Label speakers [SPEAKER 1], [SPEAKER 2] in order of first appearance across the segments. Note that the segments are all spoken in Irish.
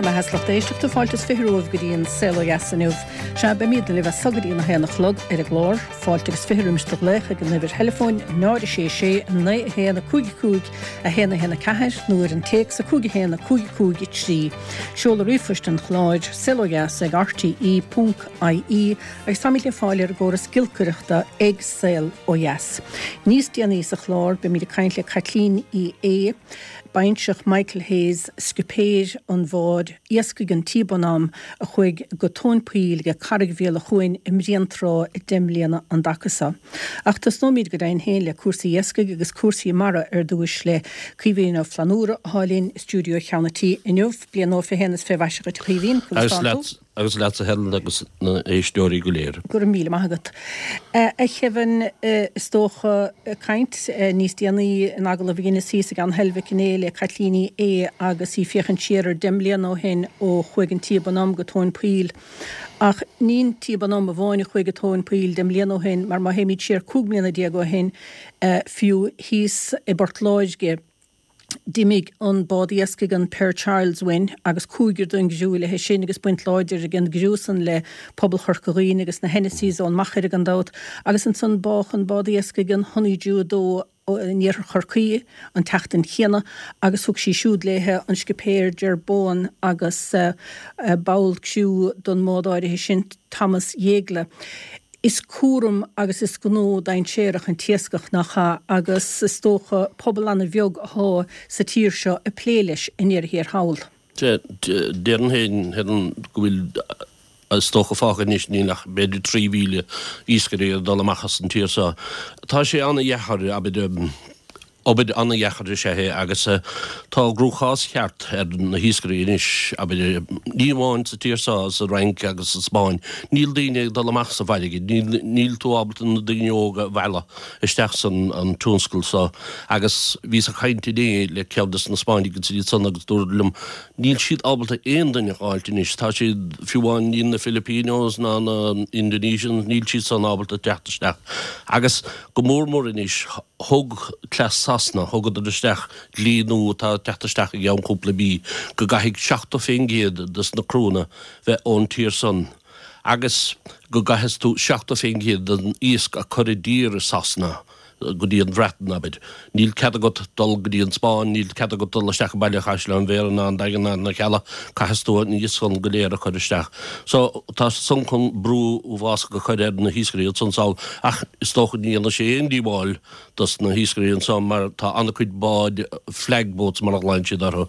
[SPEAKER 1] mbeatha is lucht éisteachta, fáilte is 20 romhaibh go dtí an Saol Ó Dheas inniu. Sea, beimidne libh as so go dtí an 1 a chlog ar an gclár. Fáilte agus 20 roimis do ghlaoch ag an uimhir theileafóin 0 6 6 9 1 5 5 1 1 4 nó ar an téacs 5 1 5 5 3. Seoladh ríomhphoist an chláir, saolodheas ag rte ponc ie agus táimid le fáil ar an gcóras giolcaireachta ag Saol Ó Dheas. Níos déanaí sa chlár beimid ag caint le Caitlín Uí Aodha, Baintreach Michael Hayes, scipéir an bháid iascaigh an T Bonhomme a chuaigh go tóin poill ag Carraig Bhéal a' Chuain i mBréantrá 10 mbliana an dtaca seo. Ach tosnóimid go deimhin féin le cúrsaí iascaigh agus cúrsaí mara ar dtúis le Caoimhín Ó Flannúra athá linn i stiúideo Cheann a' Tí inniu. Bliain nua 21 is fé mhaise dhuit a Chaoimhín, conas
[SPEAKER 2] tánn tú? Agus leatsa Helen agus na héisteoirí go léir.
[SPEAKER 1] Go raibh míle maith agat. A Kevin, is dócha, caint níos déanaí in agallamh a dheineas thíos i gCeann Heilbhic inné le Caitlín Uí Aodha agus í ag féachaint siar ar 10 mbliana ó shin ó chuaigh an T Bonhomme go tóin poill. Ach ní an T Bonhomme amháin a chuaigh go tóin poill 10 mbliana ó shin mar má théimid siar 15 mbliana ó shin fiú thíos i bPort Láirge, D'imigh an bád iascaigh an Pier Charles uainn agus cúigear den gcriú léithe sin agus baint láidir ag an gcriú san le pobal Chorca Dhuibhne agus na Hennessys ón Machaire gan dabht agus ansan bádh an bád iascaigh an Honeydew 2 in iarthar Chorcaí an tseachtain chéanna agus thug sí siúd léithe an scipéir Ger Bowen agus ball criú don mbád áirithe sin Thomas Jeggle. Is cúram agus is gnó dainséarach an t-iascach, nach ea, agus is dócha pobal ana-bheag athá sa tír seo ag plé leis i ndeireadh thiar thall.
[SPEAKER 2] Déarfainn féin, Helen, go bhfuil, is dócha fágtha anois, níl ach b'fhéidir 3,000 iascaire ag dul amach as an tír seo. Tá sé ana-dheacair, abair, Obair an-dheacair is ea é agus tá an gcruachás ceart ar na hiascairí anois, abair, ní amháin sa tír seo, sa Fhrainc agus sa Spáinn. Níl daoine ag dul amach sa bhfarraige, níl tú ábalta na daoine óga a mhealladh isteach san an tionscal seo. Agus bhíos ag caint inné le ceann des na Spáinnigh agus iad san agus dúradar liom, níl siad ábalta aon duine a dh'fháilt anois, tá siad, fiú amháin níl na Filipinos ná na Indonesians, níl siad san ábalta teacht isteach. Agus go mór mór anois, Thug cleas Sasana, thugadar isteach dlí nua atá ag teacht isteach i gceann cúpla mí, go gcaithfidh 70% des na criúnna bheith ón tír san agus go gcaithfeas tú 70% den iasc a cur i dtír i Sasana, go dtí an Bhreatain, abair. Níl cead agat dul go dtí an Spáinn, níl cead agat dul isteach i mBaile Chaisleáin Bhéarra ná an Daingean ná na Cealla, caithfeas tú an iasc san go léir a chur isteach. So, tá san chun brú uafásach a chur ar na hiascairí ansan sall ach is dócha ní dhéanfaidh sé aon díobháil dos na hiascairí anso mar tá an-chuid báid, flag boats mar a ghlaonn siad orthu,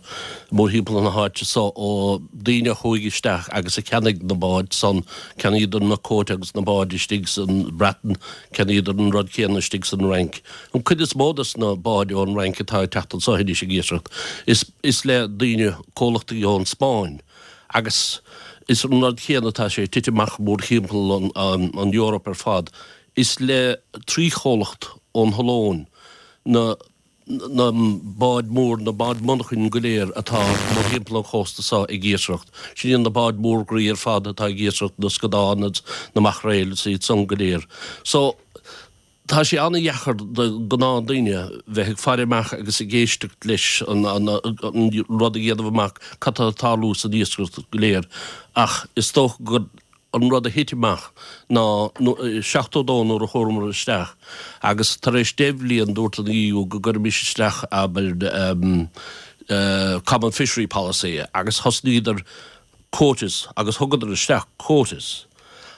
[SPEAKER 2] mórthimpeall na háite so ó daoine a chuaigh isteach agus a cheannaigh na báid san, cheannaíodar na quota agus na báid istigh san Bhreatain, cheannaíodar an rud céanna istigh san Fhrainc. An cuid is mó dos na báid ón Fhrainc atá ag teacht anso anois ag iascaireacht is is le daoine, comhlachtaí ón Spáinn. Agus is an rud céanna atá sé ag titim amach mórthimpeall an Eoraip ar fad. Is le 3 chomhlacht ón Ollainn na na báid mór, na báid monarchain go léir atá mórthimpeall an chósta seo ag iascaireacht. Sin iad na báid mór groí ar fad atá ag iascaireacht, na scadáin agus na maichréil is iad san go léir. So. Tá sé an-dheacair do ghnáthdaoine bheith ag faire amach agus ag éisteacht leis an rud a dhéanamh amach cad tá ag tarlú san iascaireacht go léir ach is dócha gur an rud a thit amach ná 72 nuair a chuamar isteach agus tar éis 10 bhliain dúirt an EU go gcuirfimis isteach abair Common Fishery Policy agus thosnaíodar quotas agus thugadar isteach quotas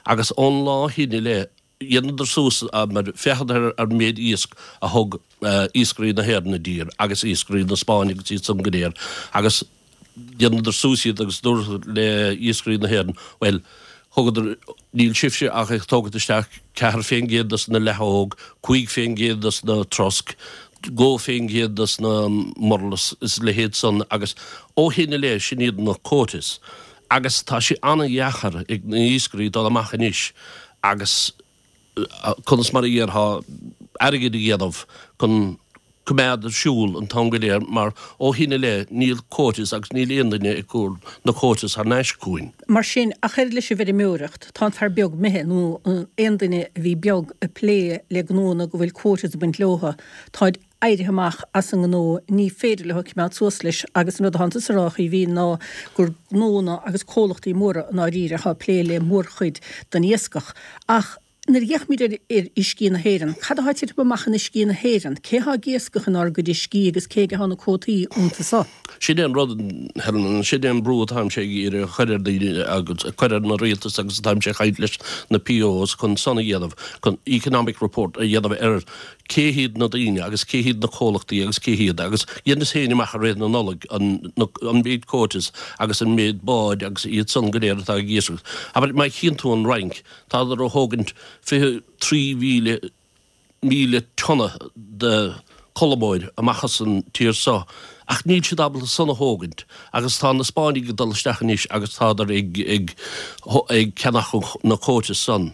[SPEAKER 2] agus ón lá shin i leith Dheineadar suas mar féachadar ar an méid iasc a thug iascairí na hÉireann i dtír agus iascairí na Spáinne agus iad san go léir agus dheineadar suas iad agus dúradar le iascairí na hÉireann, bhuel, thugadar, níl sibhse ach ag tógaint isteach 4% dos na leathóg, 5% dos na trosc, 2% dos na murlas is a leithéid san agus ó shin i leith sin iad na quotas agus tá sé an-dheachair ag na iascairí dul amach anois agus conas mar a dhéarfá, airgead a dhéanamh chun coimeád ar siúl an t-am go léir mar ó shin i leith níl quotas agus níl aon duine ag cur na quotas thar n-ais chugainn.
[SPEAKER 1] Mar sin, ach oiread leis an bhfeirmeoireacht, tá an fear beag imithe, nó aon duine a bhí beag ag plé le gnóanna go bhfuil quotas ag baint leotha, táid. Éirithe amach as an ngnó, ní féidir leo coimeád suas leis agus an rud atánn tusa a rá, a Chaoimhín, ná gur gnónna agus comhlachtaí móra i ndáiríre atá ag plé le mórchuid den iascach. Ach nuair a fhéachaimid ar uiscí na hÉireann, cad atá ag titim amach in uiscí na hÉireann? Cé atá ag iascach inár gcuid uiscí agus cé aige atá na cuótaí iontu so?
[SPEAKER 2] Sin é an rud, Helen, sin é an brú atáimse ag iarraidh a chur ar daoine agus a chur ar na rialtas agus atáimse ag caint leis na POs chun san a dhéanamh, chun economic report a dhéanamh ar cé hiad na daoine agus cé hiad na comhlachtaí agus cé hiad agus dheineas féin amach i rith na Nollag an an méid quotas agus an méid báid agus iad san go léir atá ag iascaireacht. Abair má chíonn tú an Fhrainc, tádar a thógaint 23,000 míle tonna de cholmóir amach as an tír so ach níl siad ábalta san a thógaint agus tá na Spáinnigh ag dul isteach anois agus tádar ag ag ag ceannach na quotas san.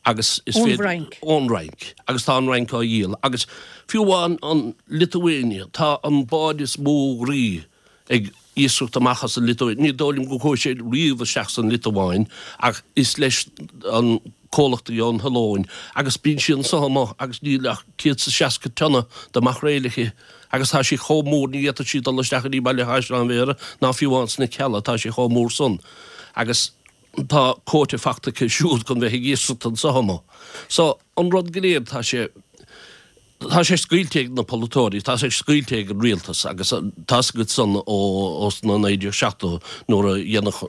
[SPEAKER 2] agus is
[SPEAKER 1] Ón bhFrainc.
[SPEAKER 2] Ón Fhrainc. Agus tá an Fhrainc á dhíol. Agus fiú amháin an Liotuáine, tá an bád is mó groí ag iascaireacht amach as an Liotuáin. Ní dóigh liom go chuaigh sé riamh isteach san Liotuáin ach is leis an comhlachtaí ón Cholóim agus bíonn sí anso amuigh agus níl ach 160 tonna de mhaicréil aici agus tá sí chomh mór ní fhéadfadh sí dul isteach go dtí Baile Chaisleáin Bhéarra ná fiú amháin sna Cealla, tá sí chomh mór san. Agus. tá quota fachta aici siúd chun bheith ag iascaireacht anso amuigh. So, an rud go léir, tá sé, tá sé scaoilte ag na polaiteoirí, tá sé scaoilte ag an rialtas agus tá's agat san ó, ó sna 1970 nuair a dhéanadh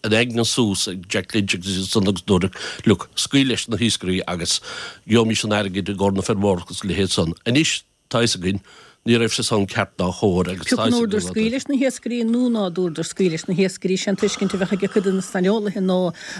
[SPEAKER 2] an aigne suas ag Jack Lynch agus iad san agus dúradh, look, scaoil leis na hiascairí agus gheobhaimis an airgead i gcomhair na feirmeoireachta agus a leithéid san. Anois, Tá fhios againn, ní raibh sé san ceart ná chóir agus
[SPEAKER 1] tá fhios againn. Pé acu an ndúradar scaoil leis na hiascairí nó ná dúradar scaoil leis na hiascairí, sé an tuiscint a bheadh ag cuid de na saineolaithe ná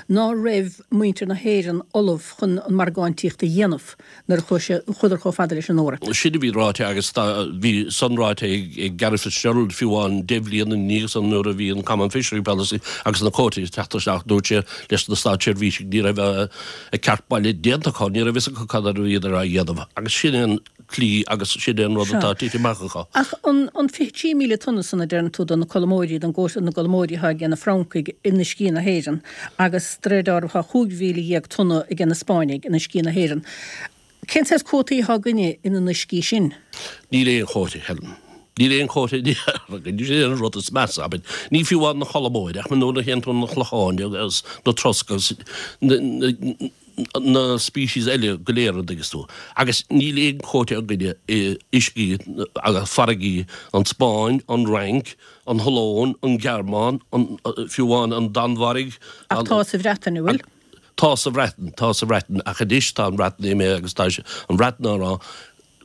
[SPEAKER 1] ná raibh muintir na hÉireann ullamh chun an margáintíocht a dhéanamh nuair a chuaigh sé, chuadar chomh fada leis an Eoraip.
[SPEAKER 2] Sin a bhí ráite agus tá, bhí san ráite ag, ag Garret FitzGerald fiú amháin deich bhliain ina dhiaidh san nuair a bhí an Common Fishery Policy agus na quotaí ag teacht isteach, dúirt sé leis na státseirbhísigh ní raibh a, a ceart baile déanta acu, ní raibh fhios acu cad a bhíodar á dhéanamh agus sin é an tslí agus sin é an rud atá tite amach acu.
[SPEAKER 1] Ach an 23,000 tonna san a deireann tú do na colmóirí, don gcóta na gcolmóirí atá ag na Francaigh in uiscí na hÉireann agus de réir dealraimh tá 15,000 tonna ag na Spáinnigh in uiscí na hÉireann. Cén saghas cuótaí atá againne ina n-uiscí sin?
[SPEAKER 2] Níl aon chóta, Helen. Níl aon chóta againn. Sin é an rud is measa, abair. Ní fiú amháin na colmóirí ach nuair a théann tú na clocháin agus na trosc agus na na species eile go léir an dtuigeas tú. Agus níl aon quota againne i uiscí agus farraigí an Spáinn, an Fhrainc, an Cholóim, an Ghearmáin, an, fiú amháin an Danmhairg,
[SPEAKER 1] Ach tá sa Bhreatain, an bhfuil?
[SPEAKER 2] Tá sa Bhreatain, tá sa Bhreatain ach anois tá an Bhreatain imithe agus tá an Bhreatain á rá,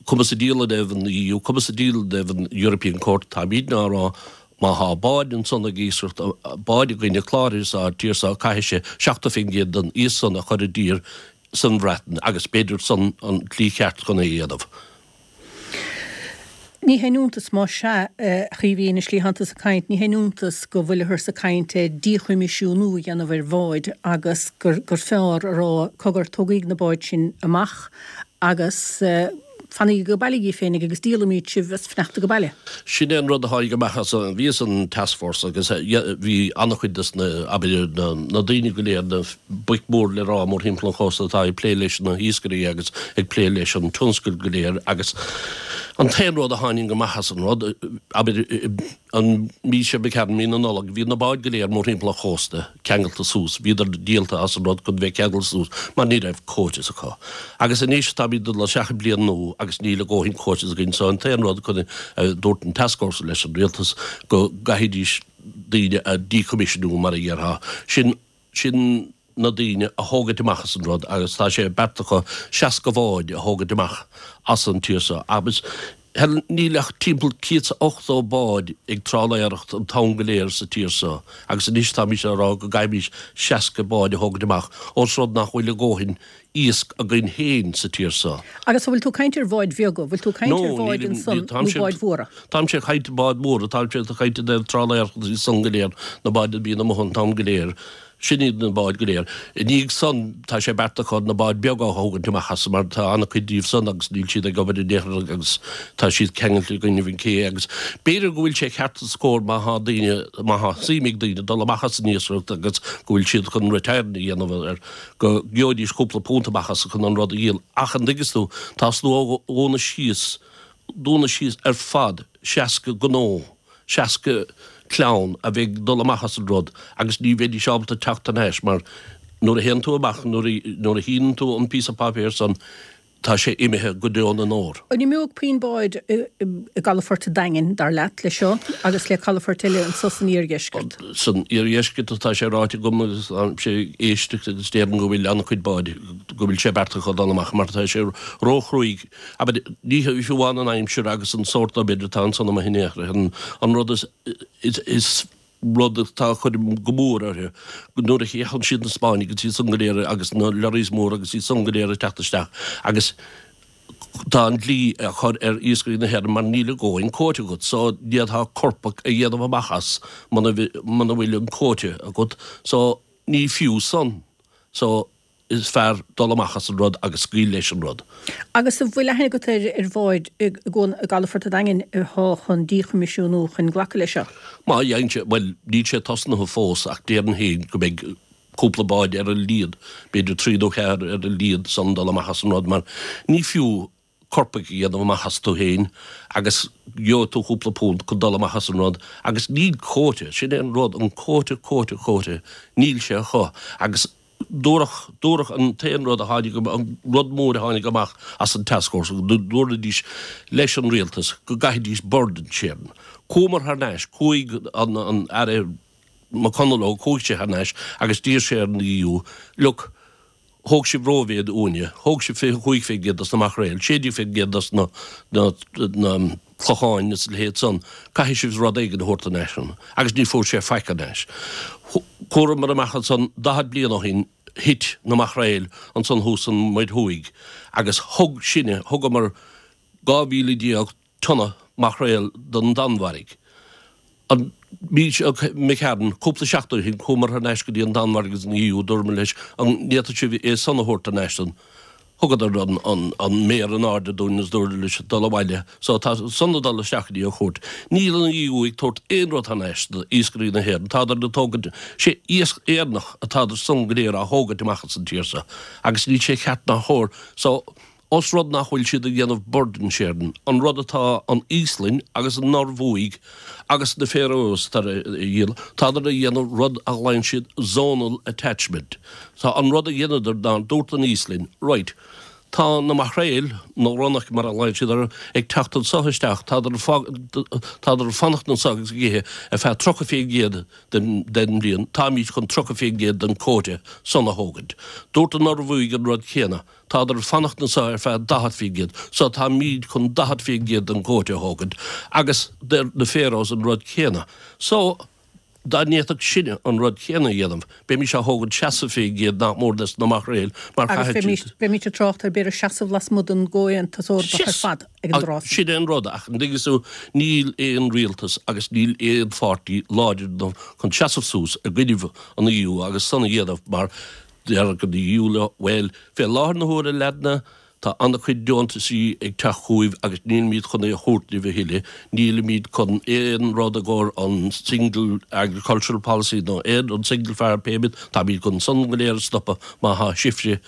[SPEAKER 2] cuma sa diabhal i dtaobh an EU, cuma sa diabhal i dtaobh an European Court, táimidne á rá, má thá báid ansan ag iascaireacht, báid againne cláraithe sa tír seo, caithfidh sé 70% den iasc san a chur i dtír san Bhreatain agus b'fhéidir san an tslí cheart chun é a dhéanamh.
[SPEAKER 1] Ní haon iontas más ea, a Chaoimhín, an slí atánn tusa ag caint, ní haon iontas go bhfuilthear ag caint ar díchoimisiúnú a dhéanamh ar bháid agus gur fearr a rá, cogar, tógaíg na báid sin amach agus fanaigí ag baile dhíbh féinig agus díolaimíd sibh as fanacht ag baile.
[SPEAKER 2] Sin é an rud a tháinig amach as an, bhíos an task force agus bhí an-chuid des na, abair, na daoine go léir, na boic mhór le rá mórthimpeall an chósta atá ag plé leis na hiascairí agus ag plé leis an tionscal go léir agus an t-aon rud a tháinig amach as an rud, abair, An mhí seo imigh tharainn, mí na Nollag, bhí na báid go léir mórthimpeall an chósta ceangailte suas, bhíodar díolta as an rud chun bheith ceangailte suas mar ní raibh quotas acu. Agus anois táimid ag dul isteach i bliain nua agus níl a dhóthain quotas againn so an t-aon rud chun a dúirt an task force leis an rialtas go gcaithfidís daoine a díchoimisiúnú mar a dhéarfá. Sin sin na daoine a thógaint amach as an rud agus tá sé beartaithe acu 60 bhád a thógaint amach as an tír seo agus Helen níl ach timpeall 180 bád ag trálaeireacht an t-am go léir sa tír seo agus anois táimís á rá go gcaithfimís 60 bád a thógaint amach ós rud nach bhfuil a dhóthain iasc againn féin sa tír seo.
[SPEAKER 1] Agus an bhfuil tú ag caint ar bháid bheaga, bhfuil tú ag caint ar bháid ansan nó báid mhóra?
[SPEAKER 2] Táimse ag caint báid mhóra, táimse ag caint i dtaobh trálaeireacht agus san go léir, na báid a bhíonn amuigh an t-am go léir. Sin iad na báid go léir. I ndiaidh san, tá sé beartaithe acu na báid beaga a thógaint amach as mar tá an-chuid díobh san agus níl siad ag obair in aon chor agus tá siad ceangailte i gcoinnibh an cé agus b'fhéidir go bhfuil sé ceart is cóir má thá daoine, má thá suim ag daoine dul amach as an iascaireacht agus go bhfuil siad chun retirement a dhéanamh ar go gheobhaidís cúpla punt amach as chun an rud a dhíol. Ach an dtuigeas tú, tá slua dhúnadh síos. dúnadh síos ar fad 60 gnó, 60 clann a bheidh ag dul amach as an rud agus ní bheidís ábalta teacht thar n-ais mar nuair a théann tú amach, nuair a shíneann tú an píosa páipéir san, tá sé imithe go deo na ndeor.
[SPEAKER 1] An imeoidh puinn báid i gcalafort an Daingin, dar leat, leis seo agus le calafoirt eile anso san iardheisceart?
[SPEAKER 2] San iardheisceart atá sé ráite agam agus táimse ag éisteacht agus déarfainn go bhfuil an-chuid báid, go bhfuil sé beartaithe acu dul amach mar tá sé róchruaidh. Abair, ní fiú amháin an aimsir agus an sórt obair atá ansan amuigh in aon chor, an rud is, is rud atá ag cur go mór orthu, nuair a fhéachann siad na Spáinnigh agus iad san go léir agus na lorries móra agus iad san go léir ag teacht isteach agus tá an dlí á chur ar iascairí na hÉireann mar níl a dhóthain quota agat so d'fhéadfá corpach a dhéanamh amach as muna bhfuil an quota agat so ní fiú san so is fearr dul amach as an rud agus scaoil leis an rud.
[SPEAKER 1] Agus an bhfuil aithne agat ar bháid i gcalafort an Daingin atá chun díchoimisiúnú chun glacadh leis seo?
[SPEAKER 2] Má dhéanann sé, bhuel, níl sé tosnaithe fós ach déarfainn féin go mbeidh cúpla bád ar a laghad, b'fhéidir trí nó ceathair ar a laghad san dul amach as an rud mar ní fiú corpaigh a dhéanamh amach astu féin agus gheobhaidh tú cúpla punt chun dul amach as an rud agus níl quota, sin é an rud, an quota, quota, quota, níl sé acu agus dúradh, dúradh an t-aon rud a tháinig, an rud mór a tháinig amach as an taskforce, go ndúraidís leis an rialtas go gcaithfidís burden sharing. Chuamar thar n-ais, chuaigh an, an Aire McConalogue, chuaigh sé thar n-ais agus d'iarr sé ar an EU, look, Thóg sibh rómhéid uainne. Thóg sibh 25% dos na maicréil, 16% dos na clocháin is a leithéid san. Caithfidh sibh rud éigin a thabhairt thar n-ais dúinn. Agus ní fuair sé faic thar n-ais. Chuamar amach ansan 40 bliain ó shin, thit na maicréil ansan thuas san Muir Thuaidh agus thug sinne, thugamar 12,000 tonna maicréal don Danmhairg. An mhí seo imigh tharainn, cúpla seachtain ó shin, chuamar thar n-ais go dtí an Danmhairg agus an EU, dúramar leis an bhféadfadh sibh é san a thabhairt thar n-ais dúinn. Thugadar an méar in airde dúinn agus dúradar leis dul abhaile. So tá san ag dul isteach go dtí an chúirt. Níl an EU ag tabhairt aon rud thar n-ais d'iascairí na hÉireann. Tádar ag tógaint, sé iasc Éireannach atádar san go léir á thógaint amach as an tír seo agus níl sé ceart ná chóir. So Ós rud nach bhfuil siad ag déanamh burden sharing, an rud atá an Íoslainn agus an Norbhuaidh agus na Faroes tar a dhéanamh, tádar a dhéanamh rud a ghlaonn siad zonal attachment. Tá an rud a dheineadar ná dúirt an Íoslainn, right, tá na maicréil, na ronnach mar a ghlaonn siad orthu, ag teacht anso isteach, tádar tádar ag fanacht anso agus ag ithe ar feadh 30% den den bhliain, táimid chun 30% den quota san a thógaint. Dúirt an Norbhuaidh an rud céanna. Tádar ag fanacht anso ar feadh 40%, so táimíd chun 40% den quota a thógaint, agus deir na Faroes an rud céanna. So, dá ndéanfadh sinne an rud céanna a dhéanamh, bheimís á thógaint 60% nach mór des na maicréil, mar
[SPEAKER 1] Agus chaithfidh siad. bheimís ag trácht ar b'fhéidir seasamh lasmuigh den gComhaontas Eorpach ar fad ag an dtráth
[SPEAKER 2] sin. Sin é an rud, ach an dtuigeann tú, níl aon rialtas agus níl aon pháirtí láidir enough chun seasamh suas i gcoinnibh an EU agus san a dhéanamh mar Déarfaidh an EU leo, bhuel, fé láthair na huaire, a leaideanna, tá an-chuid deontaisí ag teacht chugaibh agus nílimid chun é a thabhairt libh a thuilleadh, nílimid chun aon rud i gcomhair an Single Agricultural Policy nó aon, an Single Farm Payment, táimid chun san go léir a stopadh má thá sibhse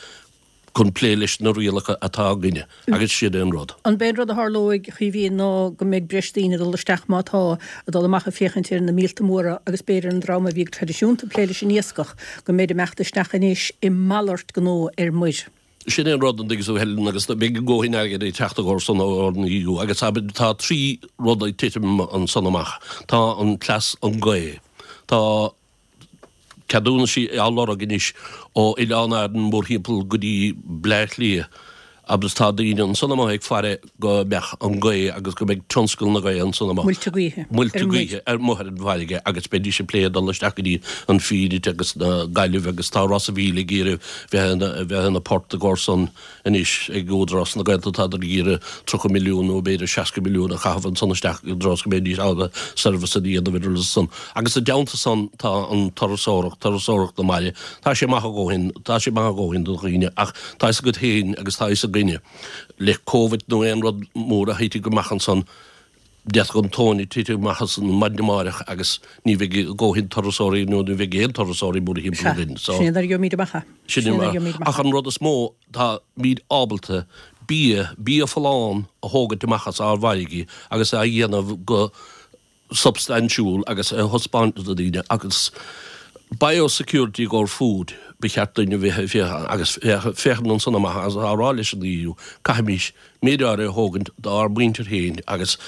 [SPEAKER 2] chun plé leis na rialacha atá againne. Agus sin é an rud.
[SPEAKER 1] An b'é an rud a tharlóidh, a Chaoimhín, ná go mbeidh breis daoine ag dul isteach, má tá, ag dul amach ag féachaint ar na míolta móra agus b'fhéidir an dream a bhí go traidisiúnta ag plé leis an iascach, go mbeid ag imeacht isteach anois i malairt gnó ar muir.
[SPEAKER 2] Sin é an rud, an dtuigeann tú, Helen, agus beidh a ndóthain airgid ag teacht i gcomhair san ón EU agus tá trí rud ag titim ansan amach. Tá an cleas an gaoth. Tá. ceadúnaisí á lorg anois ó Oileáin Árann mórthimpeall go dtí Bleá Cliath agus tá daoine ansan amuigh ag faire go mbeadh an gaoth agus go mbeidh tionscal na gaoithe ansan amuigh.
[SPEAKER 1] Muilte gaoithe.
[SPEAKER 2] Muilte gaoithe ar amuigh ar an bhfarraige agus beidís ag plé dul isteach go dtí an Fíonait agus na Gaillimh agus tá Ros a' Mhíl ag iarraidh bheith ina bheith ina port i gcomhair san Anois ag Údarás na Gaeltachta tádar ag iarraidh 30 milliún nó b'fhéidir 60 milliún a chaitheamh ansan isteach i dtreo is go mbeidís ábalta service a dhéanamh ar san. Agus i dteannta san tá an turasóireacht, turasóireacht na mbaile. Tá sé maith a dhóthain, tá sé maith a dhóthain do dhaoine ach tá fhios agat féin agus tá fhios againne le Covid nó aon rud mór a thitfidh amach ansan, d'fhéadfadh an tóin a titim amach as an maidin amáireach agus ní bheidh a dhóthain turasóirí nó ní bheidh aon turasóirí mórthimpeall
[SPEAKER 1] againn. Sea, sin é nuair a gheobhaimid amach é.
[SPEAKER 2] Sin é. Ach an rud is mó, táimid ábalta. bia, bia folláin a thógaint amach as ár bhfarraigí agus á dhéanamh go substaintiúil agus a thaispeáint do dhaoine agus biosecurity i gcomhair food ba cheart duinn a bheith ag féachaint agus féachaint ansan amach agus á rá leis an EU caithfimís méid áirithe a thógaint dár muintir féin agus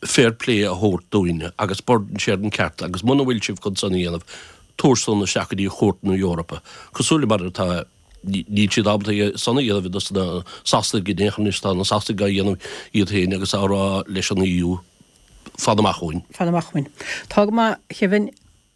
[SPEAKER 2] fair play a thabhairt dúinne agus burden sharing ceart agus muna bhfuil sibh chun san a dhéanamh tabhair san isteach go dtí Chúirt na Eorpa cosúil le mar atá Níl siad ábalta é san a dhéanamh dos na Sasanaigh in aon chor anois tá na Sasanaigh á dhéanamh iad féin agus á rá leis an EU fan amach uainn.
[SPEAKER 1] Fan amach uainn. Tá go maith, a Kevin.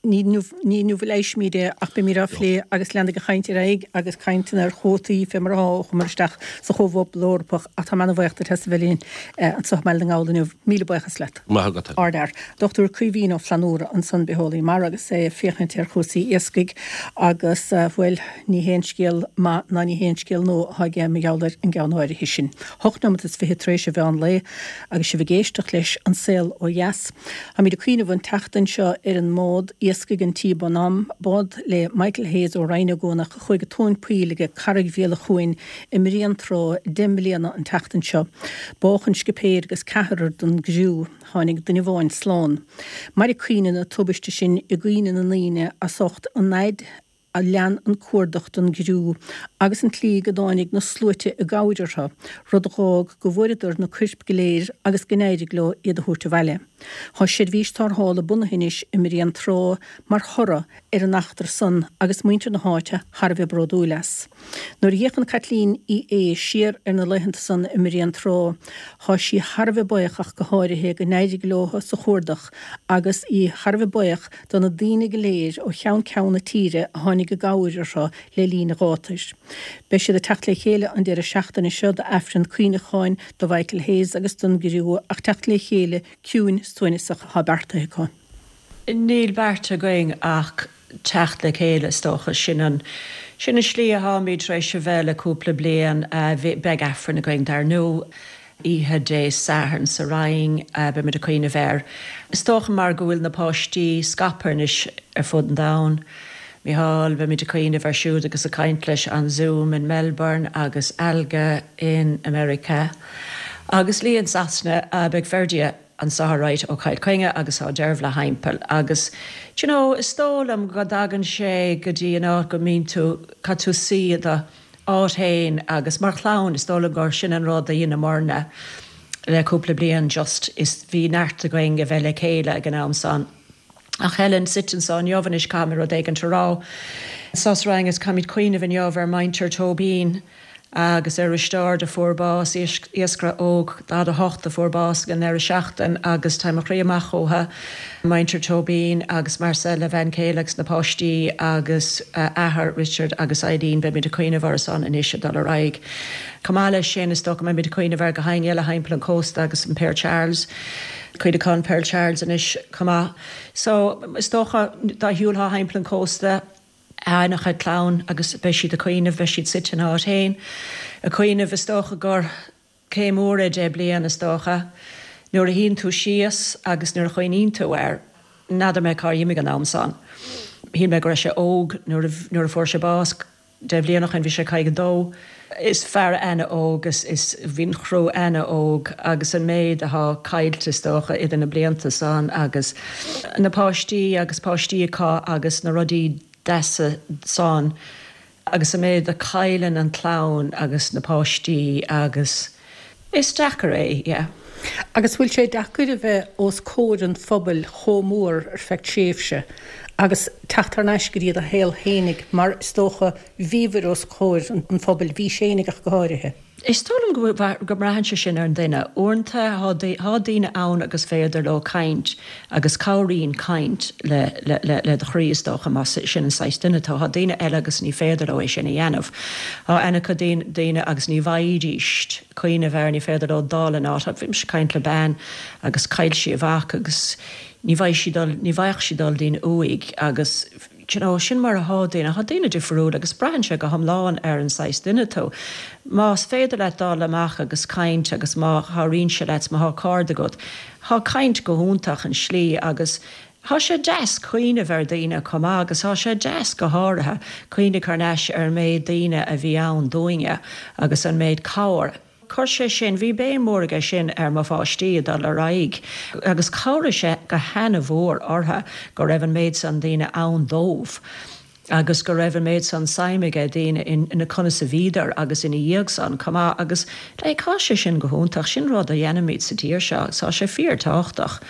[SPEAKER 1] Ní inniu, ní inniu a leighisfimid é ach beimid á phlé agus leanfaidh an chaint ar aghaidh agus cainteanna ar chuótaí fé mar atá ó chuamar isteach sa Chomhphobal Eorpach ach táim ana-bhaoch duit as a bheith linn anseo i mBaile na nGall inniu. Míle buíochas leat.
[SPEAKER 2] Maith agat.
[SPEAKER 1] Ardfhear. Dr Caoimhín Ó Flannúra ansan, bitheolaí mara agus é ag féachaint ar chúrsaí iascaigh agus, bhuel, ní haon scéal maith ná ní haon scéal nua atá aige mar gheall ar an gceann áirithe sin. Hocht neomat is fiche tar éis an mheán lae agus sibh ag éisteacht leis An Saol Ó Dheas. Táimid ag cuimhneamh an tseachtain seo ar an mbád iascaigh an Tí Bonhomme, bád le Michael Hayes ó Rinn Ó gCuanach a chuaigh i dtóin poill ag Carraig Bhéal an Chuain i mBréantrá 10 mbliana an tseachtain seo. Bádh an scipéir agus ceathrar den gcriú. Tháinig duine amháin slán. Mairfidh cuimhne na tubaiste sin i gcuimhne na ndaoine as ucht an fhaid a lean an cuardach don gcriú agus an tslí go dtáinig na sluaite i gcabhair orthu, rud a dh'fhág go bhfuaireadar na coirp go léir agus go n-éirigh leo iad a thabhairt abhaile. Tá seirbhís tarrthála bunaithe anois i mBréantrá mar thoradh ar an eachtra san agus muintir na háite thar a bheith bródúil as. Nuair a fhéachann Caitlín Uí Aodha siar ar na laethanta san i mBréantrá, thá sí thar a bheith buíoch ach go háirithe go n-éirigh leo sa chuardach agus í thar a bheith buíoch do na daoine go léir ó cheann ceann na tíre a tháinig i gcabhair orthu le linn an ghátair. Beidh siad ag teacht le chéile an deireadh seachtaine seo d'Aifreann cuimhneacháin do Mhichael Hayes agus don gcriú ach teacht le chéile ciúin suaimhneasach atá beartaithe acu.
[SPEAKER 3] Níl beartaithe againn ach teacht le chéile is dócha. Sin an, sin an slí atháimid tar éis a bheith le cúpla bliain. Beidh Aifreann againn dar ndú, oíche Dé Sathairn sa Rinn, beimid ag cuimhneamh air. Is dócha mar go bhfuil na páistí scaipthe anois ar fud an domhain. Mícheál, beimid ag cuimhneamh air siúd agus ag caint leis on Zoom in Melbourne agus Alga in America agus Lee in Sasana. Beidh Ferdia anseo alright ó Chill Chainnigh agus tá Dervla thimpeall agus do you know is dóigh liom go dtagann sé go dtí an áit go mbíonn tú, caithfidh tú suí i do áit fhéin agus mar chlann is dóigh liom gur sin an rud a dheineamarna le cúpla bliain just is bhí neart againn a bheith le chéile ag an am san. Ach Helen, suite anseo inniu anois caithfidh mé rud éigint a rá. Anseo sa Rinn is caithfimid cuimhneamh inniu ar muintir Tóibín agus ar Risteárd a fuair bás, iascaire óg 48 a fuair bás ag an ndeireadh seachtain agus tá mo chroí amach uathu, muintir Tóibín agus Marcel a bhean chéile agus na páistí agus a athair Richard agus Eileen, beimid ag cuimhneamh orthu san anois ag dul ar aghaidh. Chomh maith leis sin is dócha go mbeimid ag cuimhneamh ar gach éinne eile thimpeall an chósta agus an Pearl Charles. Cuimhneachán Pearl Charles anois chomh maith. So, is dócha, dá shiúlfá thimpeall an chósta, an-chuid clann agus beidh siad ag cuimhneamh, beidh siad suite ina áit féin ag cuimhneamh, is dócha gur céim mhór é 10 bliain, is dócha, nuair a shuíonn tú síos agus nuair a chuimhníonn tú air, n'fheadar mé cár imigh an am san. Shíl mé go raibh sé óg nuair a, nuair a fuair sé bás. 10 bhliain ó shin bhí sé 52. Is fear ana-óg is is bhí an chriú ana-óg agus an méid athá caillte is dócha idir na blianta san agus na páistí agus páistí acu agus na rudaí deasa san agus an méid a chailleann an chlann agus na páistí agus is deacair é, yeah.
[SPEAKER 1] Agus bhfuil sé deacair a bheith os comhair an phobail chomh mór ar feadh tréimhse agus teacht thar n-ais go dtí do shaol fhéinig mar is dócha bhíobhair os comhair an phobail, bhís fhéinig ach go háirithe?
[SPEAKER 3] Is dóigh liom go mbraitheann sé sin ar an duine. Uaireanta tá daoine ann agus féidir leo caint agus cabhraíonn caint le le do chroí is dócha más sin an saghas duine tú. Tá daoine eile agus ní féidir leo é sin a dhéanamh. Tá an-chuid daoine agus ní bhfaighidís cuimhneamh air, ní féidir leo dul in áit. Bhí mise ag caint le bean agus chaill sí a mhac agus ní bhfaigheadh sí dul, ní bhfaigheadh sí dul dtí'n uaigh agus do you know, sin mar athá daoine. Tá daoine difriúil agus braitheann sé go hiomlán ar an saghas duine tú. Más féidir leat dul amach agus caint agus má chabhraíonn sé leat, má thá cairde agat, thá caint go hiontach an slí agus thá sé deas cuimhneamh ar daoine chomh maith agus thá sé deas go háirithe cuimhneamh thar n-ais ar an méid daoine a bhí ann dúinne agus an méid cabhair. Chuir sé sin, bhí béim mhór aige sin ar mo pháistí ag dul ar aghaidh agus chabhraigh sé go hana-mhór orthu go raibh an méid san daoine ann dóibh agus go raibh an méid san suim aige daoine in conas a bhíodar agus ina dhiaidh san chomh maith agus like thá sé sin go hiontach, sin rud a dhéanaimid sa tír seo agus thá sé fíor tábhachtach.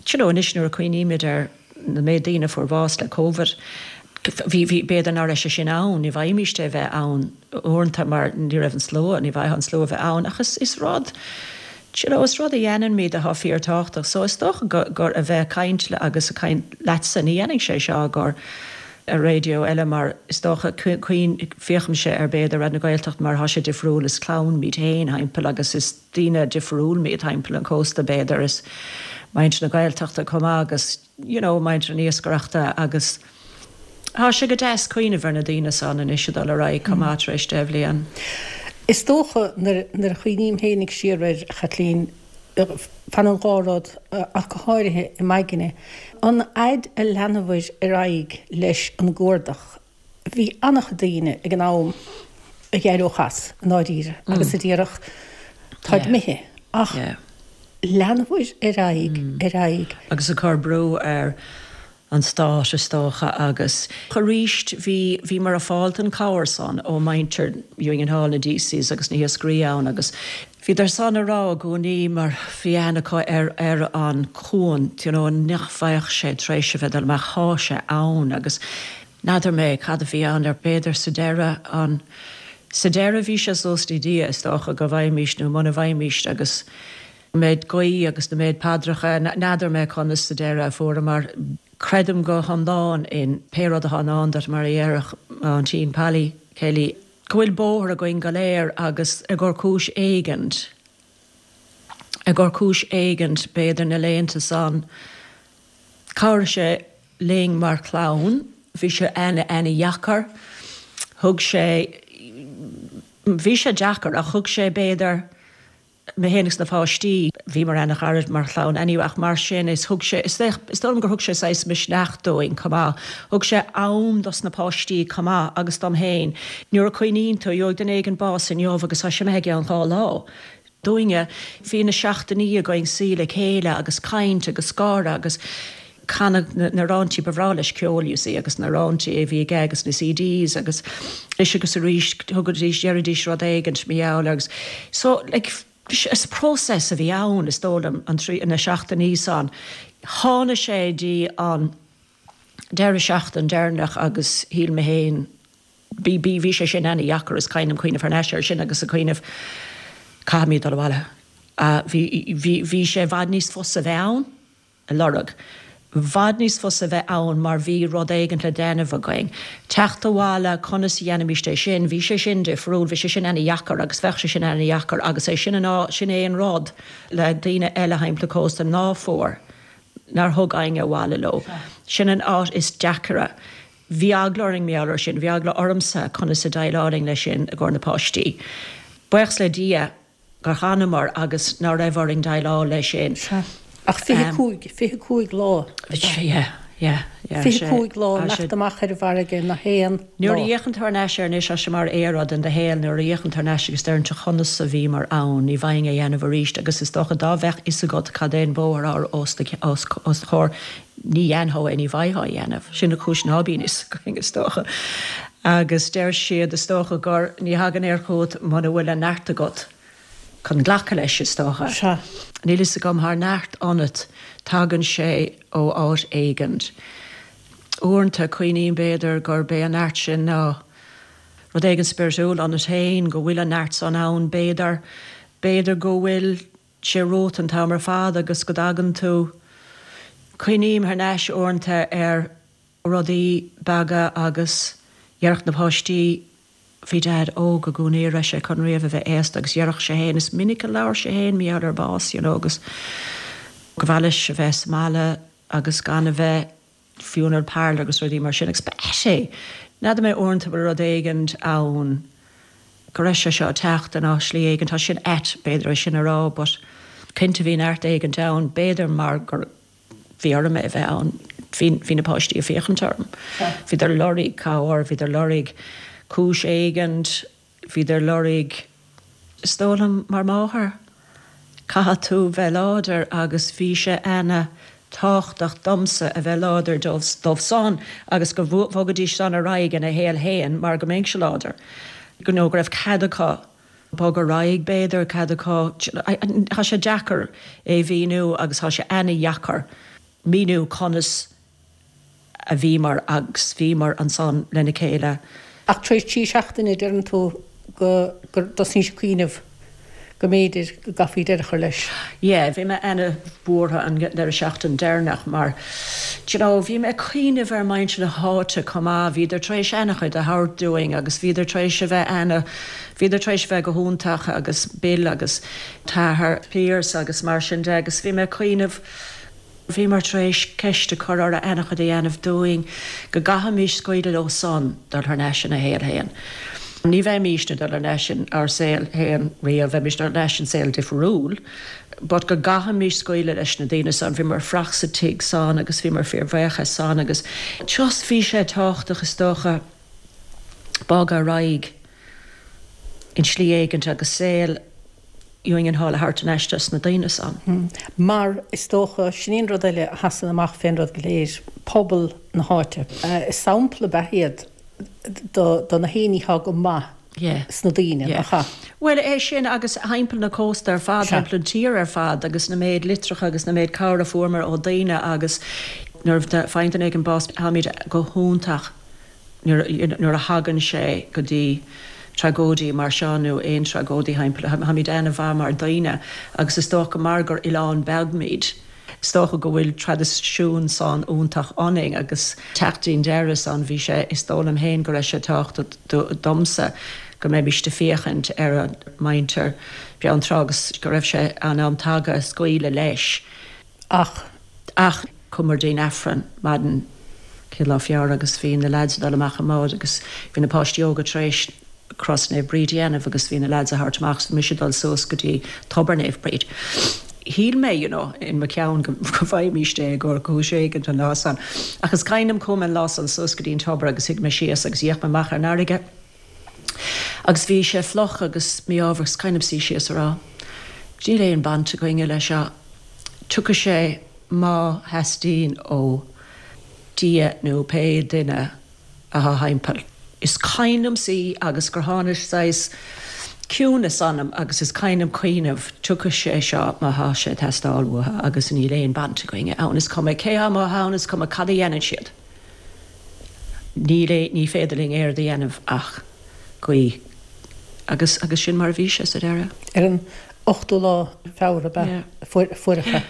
[SPEAKER 3] Do you know anois nuair a cuimhnímid ar na méid daoine a fuair bás le Covid, bhí, bhí, b'fhéidir ná raibh sé sin ann, ní bhfaighimíst é bheith ann uaireanta mar ní raibh an slua, ní bhfaightheá an slua bheith ann ach is, is rud, do you know, is rud a dhéanaimid atá fíor tábhachtach so is dócha go, gur a bheith ag caint le agus ag caint leatsa, ní dhéanfaidh sé seo gur ar raidió eile mar is dócha cuimhin, féachaimse ar b'fhéidir Raidió na Gaeltachta mar thá sé difriúil, is clann muid féin thimpeall agus is daoine difriúil muid thimpeall an chósta b'fhéidir, is muintir na Gaeltachta chomh maith agus you know muintir an iascaireachta agus thá sé go deas cuimhneamh ar na daoine san anois ag dul ar aghaidh chomh maith tar éis 10 bhliain.
[SPEAKER 1] Is dócha nuair a chuimhním féinig siar air, a Chaitlín, fanann dhá rud ach go háirithe i m'aigne. An fhaid a leanabhair ar aghaidh leis an gcuardach, bhí an-chuid daoine ag an am a d'éireodh as, i ndáiríre, agus a déarfadh, táid imithe. Ach leanabhair ar aghaidh, ar aghaidh.
[SPEAKER 3] Agus ag cur brú ar an stát, is dócha, agus arís bhí, bhíomar ag fáilt an cabhair san ó muintir Union Hall, na Deacy's agus na hiascairí ann agus bhíodar san a rá i gcónaí mar bhí aithne acu ar, ar an cuan, you know, nach bheadh sé tar éis a bheith dul amach, thá sé ann agus n'fheadar mé cad a bhí ann ar b'fhéidir sa deireadh an, sa deireadh bhí sé suas le Dia is dócha go bhfaighimíst nó muna bhfaighimíst agus an méid guí agus na méid paidreacha, n'fheadar mé conas sa deireadh a fuaireamar. Creidim go hiomlán in pé rud atá i ndán duit, mar a dhéarfadh m'aintín Polly Kelly, go bhfuil bóthar againn go léir agus i gcomhair cúis éigint, i gcomhair cúis éigint, b'fhéidir na laethanta san, chabhraigh sé linn mar chlann, bhí sé ana-ana-dheacair, thug sé, bhí sé deacair ach thug sé b'fhéidir, mé féin agus na páistí, bhíomar ana-ghairid mar chlann anyway ach mar sin is thug sé, is dóigh liom gur thug sé saghas misneach dúinn chomh maith. Thug sé am dos na páistí chomh maith agus dom féin. Nuair a cuimhníonn tú, gheobhaidh duine éigin bás inniu agus tá sé imithe i gceann 2 lá. Dúinne, bhí na seachtainí againn suí le chéile agus caint agus gáire agus canadh na ráintí, ba bhreá leis ceol you see agus na ráintí a bhí aige agus na CDs agus anois agus arís thugaidís, deiridís rud éigint mar gheall agus so like is process a bhí ann is dóigh liom an trí, na seachtainí san. Tháinig sé dtí an deireadh seachtain deireanach agus shíl mé féin bhí, bhí, bhí sé sin ana-dheacair is cuimhin liom cuimhneamh thar n-ais air sin agus ag cuimhneamh caithfimid dul abhaile. Bhí, bhí, bhí sé i bhfad níos fusa bheith ann. a lorg. Bhfad níos fusa bheith ann mar bhí rud éigint le déanamh againn. Teacht abhaile, conas a dhéanfaimíst é sin? Bhí sé sin difriúil, bhí sé sin ana-dheacair agus bheadh sé sin ana-dheacair agus é sin an áit, sin é an rud le daoine eile thimpeall an chósta ná fuair, nár thug éinne abhaile leo. Sin an áit is deacaire. Bhí eagla orainn mar gheall air sin, bhí eagla ormsa conas a déileálfainn leis sin i gcomhair na páistí. Buíochas le Dia gur fhanamar agus ná raibh orainn déileáil leis sin.
[SPEAKER 1] Sea. Ach 25, 25 lá.
[SPEAKER 3] Yeah, yeah, yeah.
[SPEAKER 1] 25 lá imeacht amach ar an bhfarraige nach aon lá.
[SPEAKER 3] Nuair a fhéachann tú thar n-ais air anois, tá sé mar aoradh in do shaol, nuair a fhéachann tú thar n-ais agus deireann tú conas a bhíomar ann, ní bhfaighinn é a dhéanamh arís agus is dócha dá bheadh fhios agat cad é an bóthar atá os do chomhair, ní dhéanfá é, ní bhfaightheá é a dhéanamh. Sin an chúis ná bíonn fhios againn, is dócha. Agus deir siad, is dócha, gur ní thagann air chugat muna bhfuil an neart agat chun glacadh leis, is dócha.
[SPEAKER 1] Sea.
[SPEAKER 3] Níl fhios agam, thá neart ionat, tagann sé ó áit éigint. Uaireanta, cuimhním, b'fhéidir, gurb é an neart sin ná rud éigin spiritiúil ionat féin, go bhfuil an neart san ann, b'fhéidir, b'fhéidir go bhfuil sé romhat an t-am ar fad agus go dtagann tú, cuimhním thar n-ais uaireanta ar rudaí beaga agus dhéarfadh na páistí, bhí Dad óg i gcónaí, raibh sé chun riamh a bheith aosta agus dhéarfadh sé fhéin, is minic a labhair sé fhéin mar gheall ar bás you know agus go mhaith leis a bheith sa mbaile agus gan a bheith funeral parlour agus rudaí mar sin agus ba ait é. N'fheadar mé uaireanta bhfuil rud éigint ann go raibh sé seo ag teacht in áit slí éigint, tá sin ait b'fhéidir é sin a rá but cinnte bhí neart éigint ann, b'fhéidir mar gur bhí orm é a bheith ann, bhí, bhí na páistí ag féachaint orm, bhíodar ag lorg cabhair, bhíodar ag lorg cúis éigint, bhíodar ag lorg. Is dóigh liom mar máthair, caithfidh tú bheith láidir agus bhí sé ana tábhachtach domsa a bheith láidir dóibh san agus go bhogfaidís san ar aghaidh ina shaol fhéin mar go mbeinnse láidir. You know, go raibh cead acu bogadh ar aghaidh b'fhéidir, cead acu, tá sé deacair é mhíniú agus tá sé ana dheacair míniú conas a bhíomar agus bhíomar ansan lena chéile.
[SPEAKER 1] Ach tar éis 3 seachtaine, deireann tú go gur dtosnaís ag cuimhneamh go mb'fhéidir go gcaithfí deireadh a chur leis.
[SPEAKER 3] Yeah, bhí mé ana-bhuartha an deireadh seachtaine deireanach mar, do you know, bhí mé ag cuimhneamh ar muintir na háite chomh maith, bhíodar tar éis ana-chuid a thabhairt dúinn agus bhíodar tar éis a bheith ana, bhíodar tar éis a bheith go hiontach agus Bill agus t-athair Pearse agus mar sin de agus bhí mé ag cuimhneamh, Bhíomar tar éis ceist a chur orthu ana-chuid a dhéanamh dúinn, go gcaithfimis scaoileadh leo san dul thar n-ais ina shaol fhéin. Ní bheimísne dul thar n-ais in ár saol fhéin riamh, bheimis dul thar n-ais in saol difriúil, but go gcaithfimis scaoileadh leis na daoine san. Bhíomar ag fuireach sa tigh san agus bhíomar fíorbhuíoch as san agus just bhí sé tábhachtach is dócha bogadh ar aghaidh in slí éigint agus saol Union Hall a thabhairt thar n-ais dos na daoine san.
[SPEAKER 1] Mar is dócha, sin í an rud eile a sheasann amach fén rud go léir, pobal na háite. Sampla ab ea iad do na héinní atá go maith sna daoine, nach ea?
[SPEAKER 3] Bhuel, é sin agus thimpeall na cósta ar fad, thimpeall an tír ar fad agus na méid litreacha agus na méid cabhair a fuaireamar ó daoine agus nuair a faigheann duine éigin bás, táimid go hiontach nuair a thagann sé go dtí tragóidí mar seo nó aon tragóidí thimpeall, táimid ana-mhaith mar daoine agus is dócha mar gur oileán beag muid, is dócha go bhfuil traidisiún san iontach ionainn agus teacht dtí'n deireadh san bhí sé, is dóigh liom féin go raibh sé tábhachtach domsa go mbeimíst ag féachaint ar an muintir Beann Trá agus go raibh sé an am tagtha scaoileadh leis.
[SPEAKER 1] Ach.
[SPEAKER 3] Ach chuamar dtí'n Aifreann maidin chéad lá Feabhra agus bhí na leaids ag dul amach i mbád agus bhí na páistí óga tar éis Cros Naomh Bríd a dhéanamh agus bhí na leaids a thabhairt amach agus bhí mise ag dul suas go dtí Tobar Naomh Bríd. Shíl mé, you know, in mo cheann go bhfaighimíst é i gcomhair cúis éigint an lá san. Ach is cuimhin liom chuaigh mé an lá san suas go dtí'n tobar agus shuigh mé síos agus d'fhéach mé amach ar an fharraige agus bhí sé fliuch agus mí-ádhmhar is cuimhin liom suí síos a rá, níl aon baint againne leis seo. Tiocfaidh sé má theastaíonn ó Dhia nó pé duine atá thimpeall. Is cuimhin liom suí agus gur tháinig saghas ciúnas ionam agus is cuimhin liom cuimhneamh, tiocfaidh sé seo má thá sé ag teastáil uathu agus níl aon baint againne ann. Is cuma cé thá amuigh ann, is cuma cad a dhéanann siad. Níl aon, ní féidir linn aon rud a dhéanamh ach guí. Agus, agus sin mar a bhí sé sa deireadh.
[SPEAKER 1] Ar an ochtú lá Feabhra ab ea a fuaireadh é.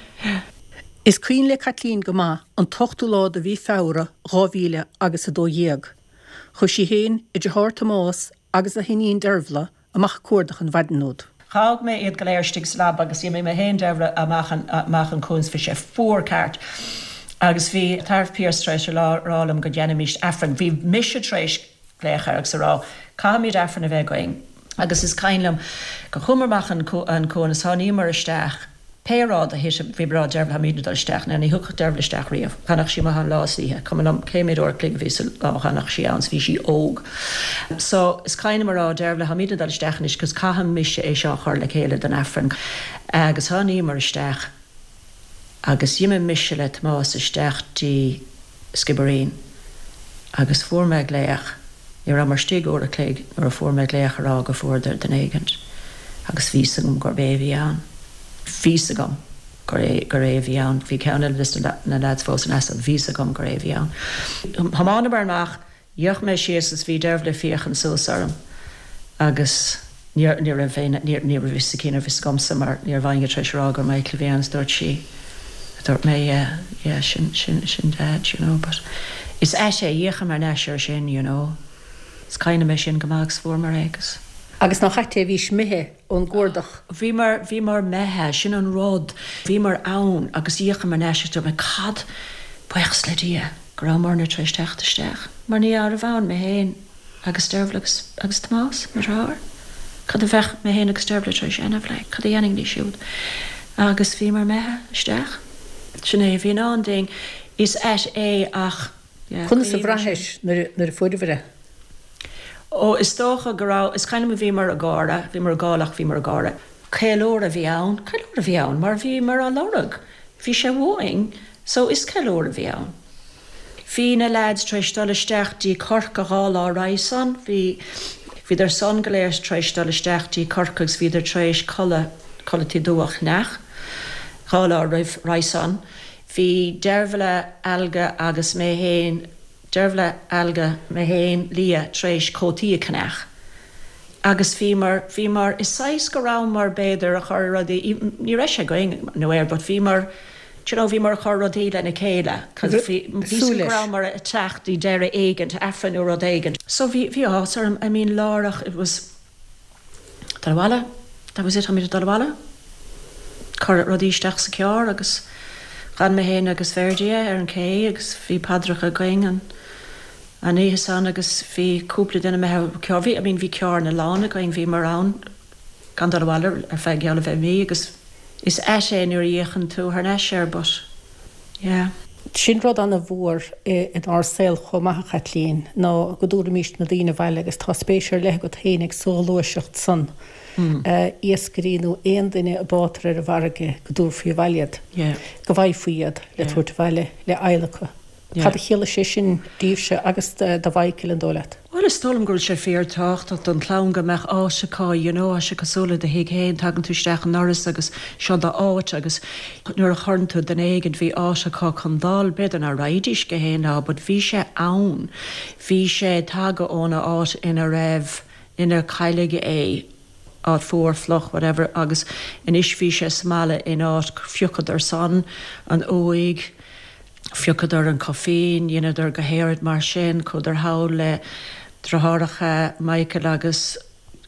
[SPEAKER 1] Is cuimhin le Caitlín go maith an t-ochtú lá de mhí Feabhra 2000 agus 12. Chuaigh sí féin, a deartháir Tomás agus a hiníon Dervla amach ag cuardach an mhaidin úd.
[SPEAKER 3] Dh'fhág mé iad go léir istigh sa leaba agus d'imigh mé fhéin Dervla amach an amach an cuan 's bhí sé fuar ceart agus bhí t-athair Pearse tar éis a rá liom go ndéanfaimíst Aifreann. Bhí mise tar éis glaoch air agus a rá caithfimid Aifreann a bheith againn agus is cuimhin liom go chuamar amach an cuan is tháiníomar isteach Pé rud a thit, bhí mé ag rá Dervla táimidne ag dul isteach. Now ní thiocfadh Dervla isteach riamh. D'fhanfadh sí amuigh ann lá is oíche. Cuma liom cé méid uair a chloig a bhí sa lá, d'fhanfadh sí ann 's bhí sí óg. So is cuimhin liom a rá Dervla táimidne ag dul isteach anois 'cause caithfidh mise é seo a chur le chéile don Aifreann. Agus tháiníomar isteach agus d'imigh mise le Tomás isteach dtí Skibbereen agus fuair mé glaoch, ní rabhamar istigh uair a chloig nuair a fuair mé glaoch a rá go fuaireadar duine éigint agus bhí 's agam gurb é a bhí ann. Bhí 's agam gur é, gur é a bhí ann. Bhí ceann eile de na leaids fós in easnamh, bhí 's agam gur é a bhí ann. Thiomáineamar amach D'fhéach mé síos is bhí Dervla ag féachaint suas orm agus ní ní raibh aon ní ní raibh fhios aici ní raibh fhios agamsa mar ní raibh éinne tar éis a rá gur Michael a bhí ann is dúirt sí dúirt mé yeah yeah sin sin sin Dad you know but is ait é d'fhéachamar thar n-ais air sin you know is cuimhin liom é sin go maith agus fuaireamar é agus.
[SPEAKER 1] Agus nach ait é bhís imithe ón gcuardach.
[SPEAKER 3] Bhíomar bhíomar imithe sin an rud bhíomar ann agus d'fhéachamar thar n-ais agus dúirt mé cad buíochas le Dia. go rabhamarna tar éis teacht isteach, mar ní raibh ann mé féin agus Dervla agus, agus Tomás, mo dheartháir. Cad a bheadh mé féin agus Dervla tar éis a dhéanamh, like, cad a dhéanfainn ní siúd? Agus bhíomar imithe isteach. Sin é a bhí i ndán dúinn. Is ait é ach, yeah,
[SPEAKER 1] Conas a bhraithis nuair a, nuair a fuaireabhair é?
[SPEAKER 3] Ó, is dócha go raibh, is cuimhin liom bhíomar ag gáire, bhíomar ag gol ach bhíomar ag gáire. Ceiliúradh a bhí ann, ceiliúradh a bhí ann mar bhíomar á lorg, bhí sé uainn, so is ceiliúradh a bhí ann. Bhí na leaids tar éis dul isteach dtí Corcaigh 2 lá roimhe san, bhí, bhíodar san go léir tar éis dul isteach dtí Corcaigh agus bhíodar tar éis culaith, culaith dubh a cheannach 2 lá roimh, roimhe san. Bhí Deirbhile, Alga agus mé fhéin, Deirbhile, Alga, mé fhéin, Leah tar éis cótaí a cheannach agus bhíomar, bhíomar i saghas go rabhamar b'fhéidir a chur rudaí, ní raibh sé againn nó air but bhíomar, do you know, bhíomar a chur rudaí lena chéile cos bhí, bhí súil go rabhamar a teacht i deireadh éigint, Aifreann nó rud éigint. So bhí, bhí áthas orm, I mean láithreach it was, Dul abhaile, that was it, táimid ag dul abhaile. Cuireadh rudaí isteach sa charr agus d'fhan mé féin agus Ferdia ar an cé agus bhí paidreacha againn an an oíche san agus bhí cúpla duine imithe carr, bhí, I mean bhí carranna lán againn, bhíomar ann gan dul abhaile ar feadh geall a bheith mí agus is ait é nuair a fhéachann tú thar n-ais air but yeah.
[SPEAKER 1] Sin rud ana-mhór inár saol chomh maith, a Chaitlín, ná go dtabharfaimís na daoine abhaile agus tá spéis ar leith agat fhéinig sa ghluaiseacht san, iascairí nó aon duine a báitear ar an bhfarraige, go dtabharfaí abhaile iad, go bhfaighfí iad le tabhairt abhaile le adhlacadh. Cad a chiallaigh sé sin daoibhse agus do Mhichael, an dóigh leat?
[SPEAKER 3] Bhuel, is dóigh liom go bhfuil sé fíor-tábhachtach don chlann go mbeadh áit acu, you know, tá sé cosúil le do thigh féin, tagann tú isteach an ndoras agus seo do áit agus nuair a chuireann tú duine éigint, bhí áit acu chun dul, b'fhéidir ná raghaidís go haon lá but bhí sé ann, bhí sé tagtha óna áit ina raibh, inar cailleadh é, áit fuar, fliuch, whatever agus anois bhí sé sa mbaile in áit, phiocadar san an uaigh, Phiocadar an coffin, dheineadar gach aon rud mar sin, chuadar thall le deartháireacha Michael agus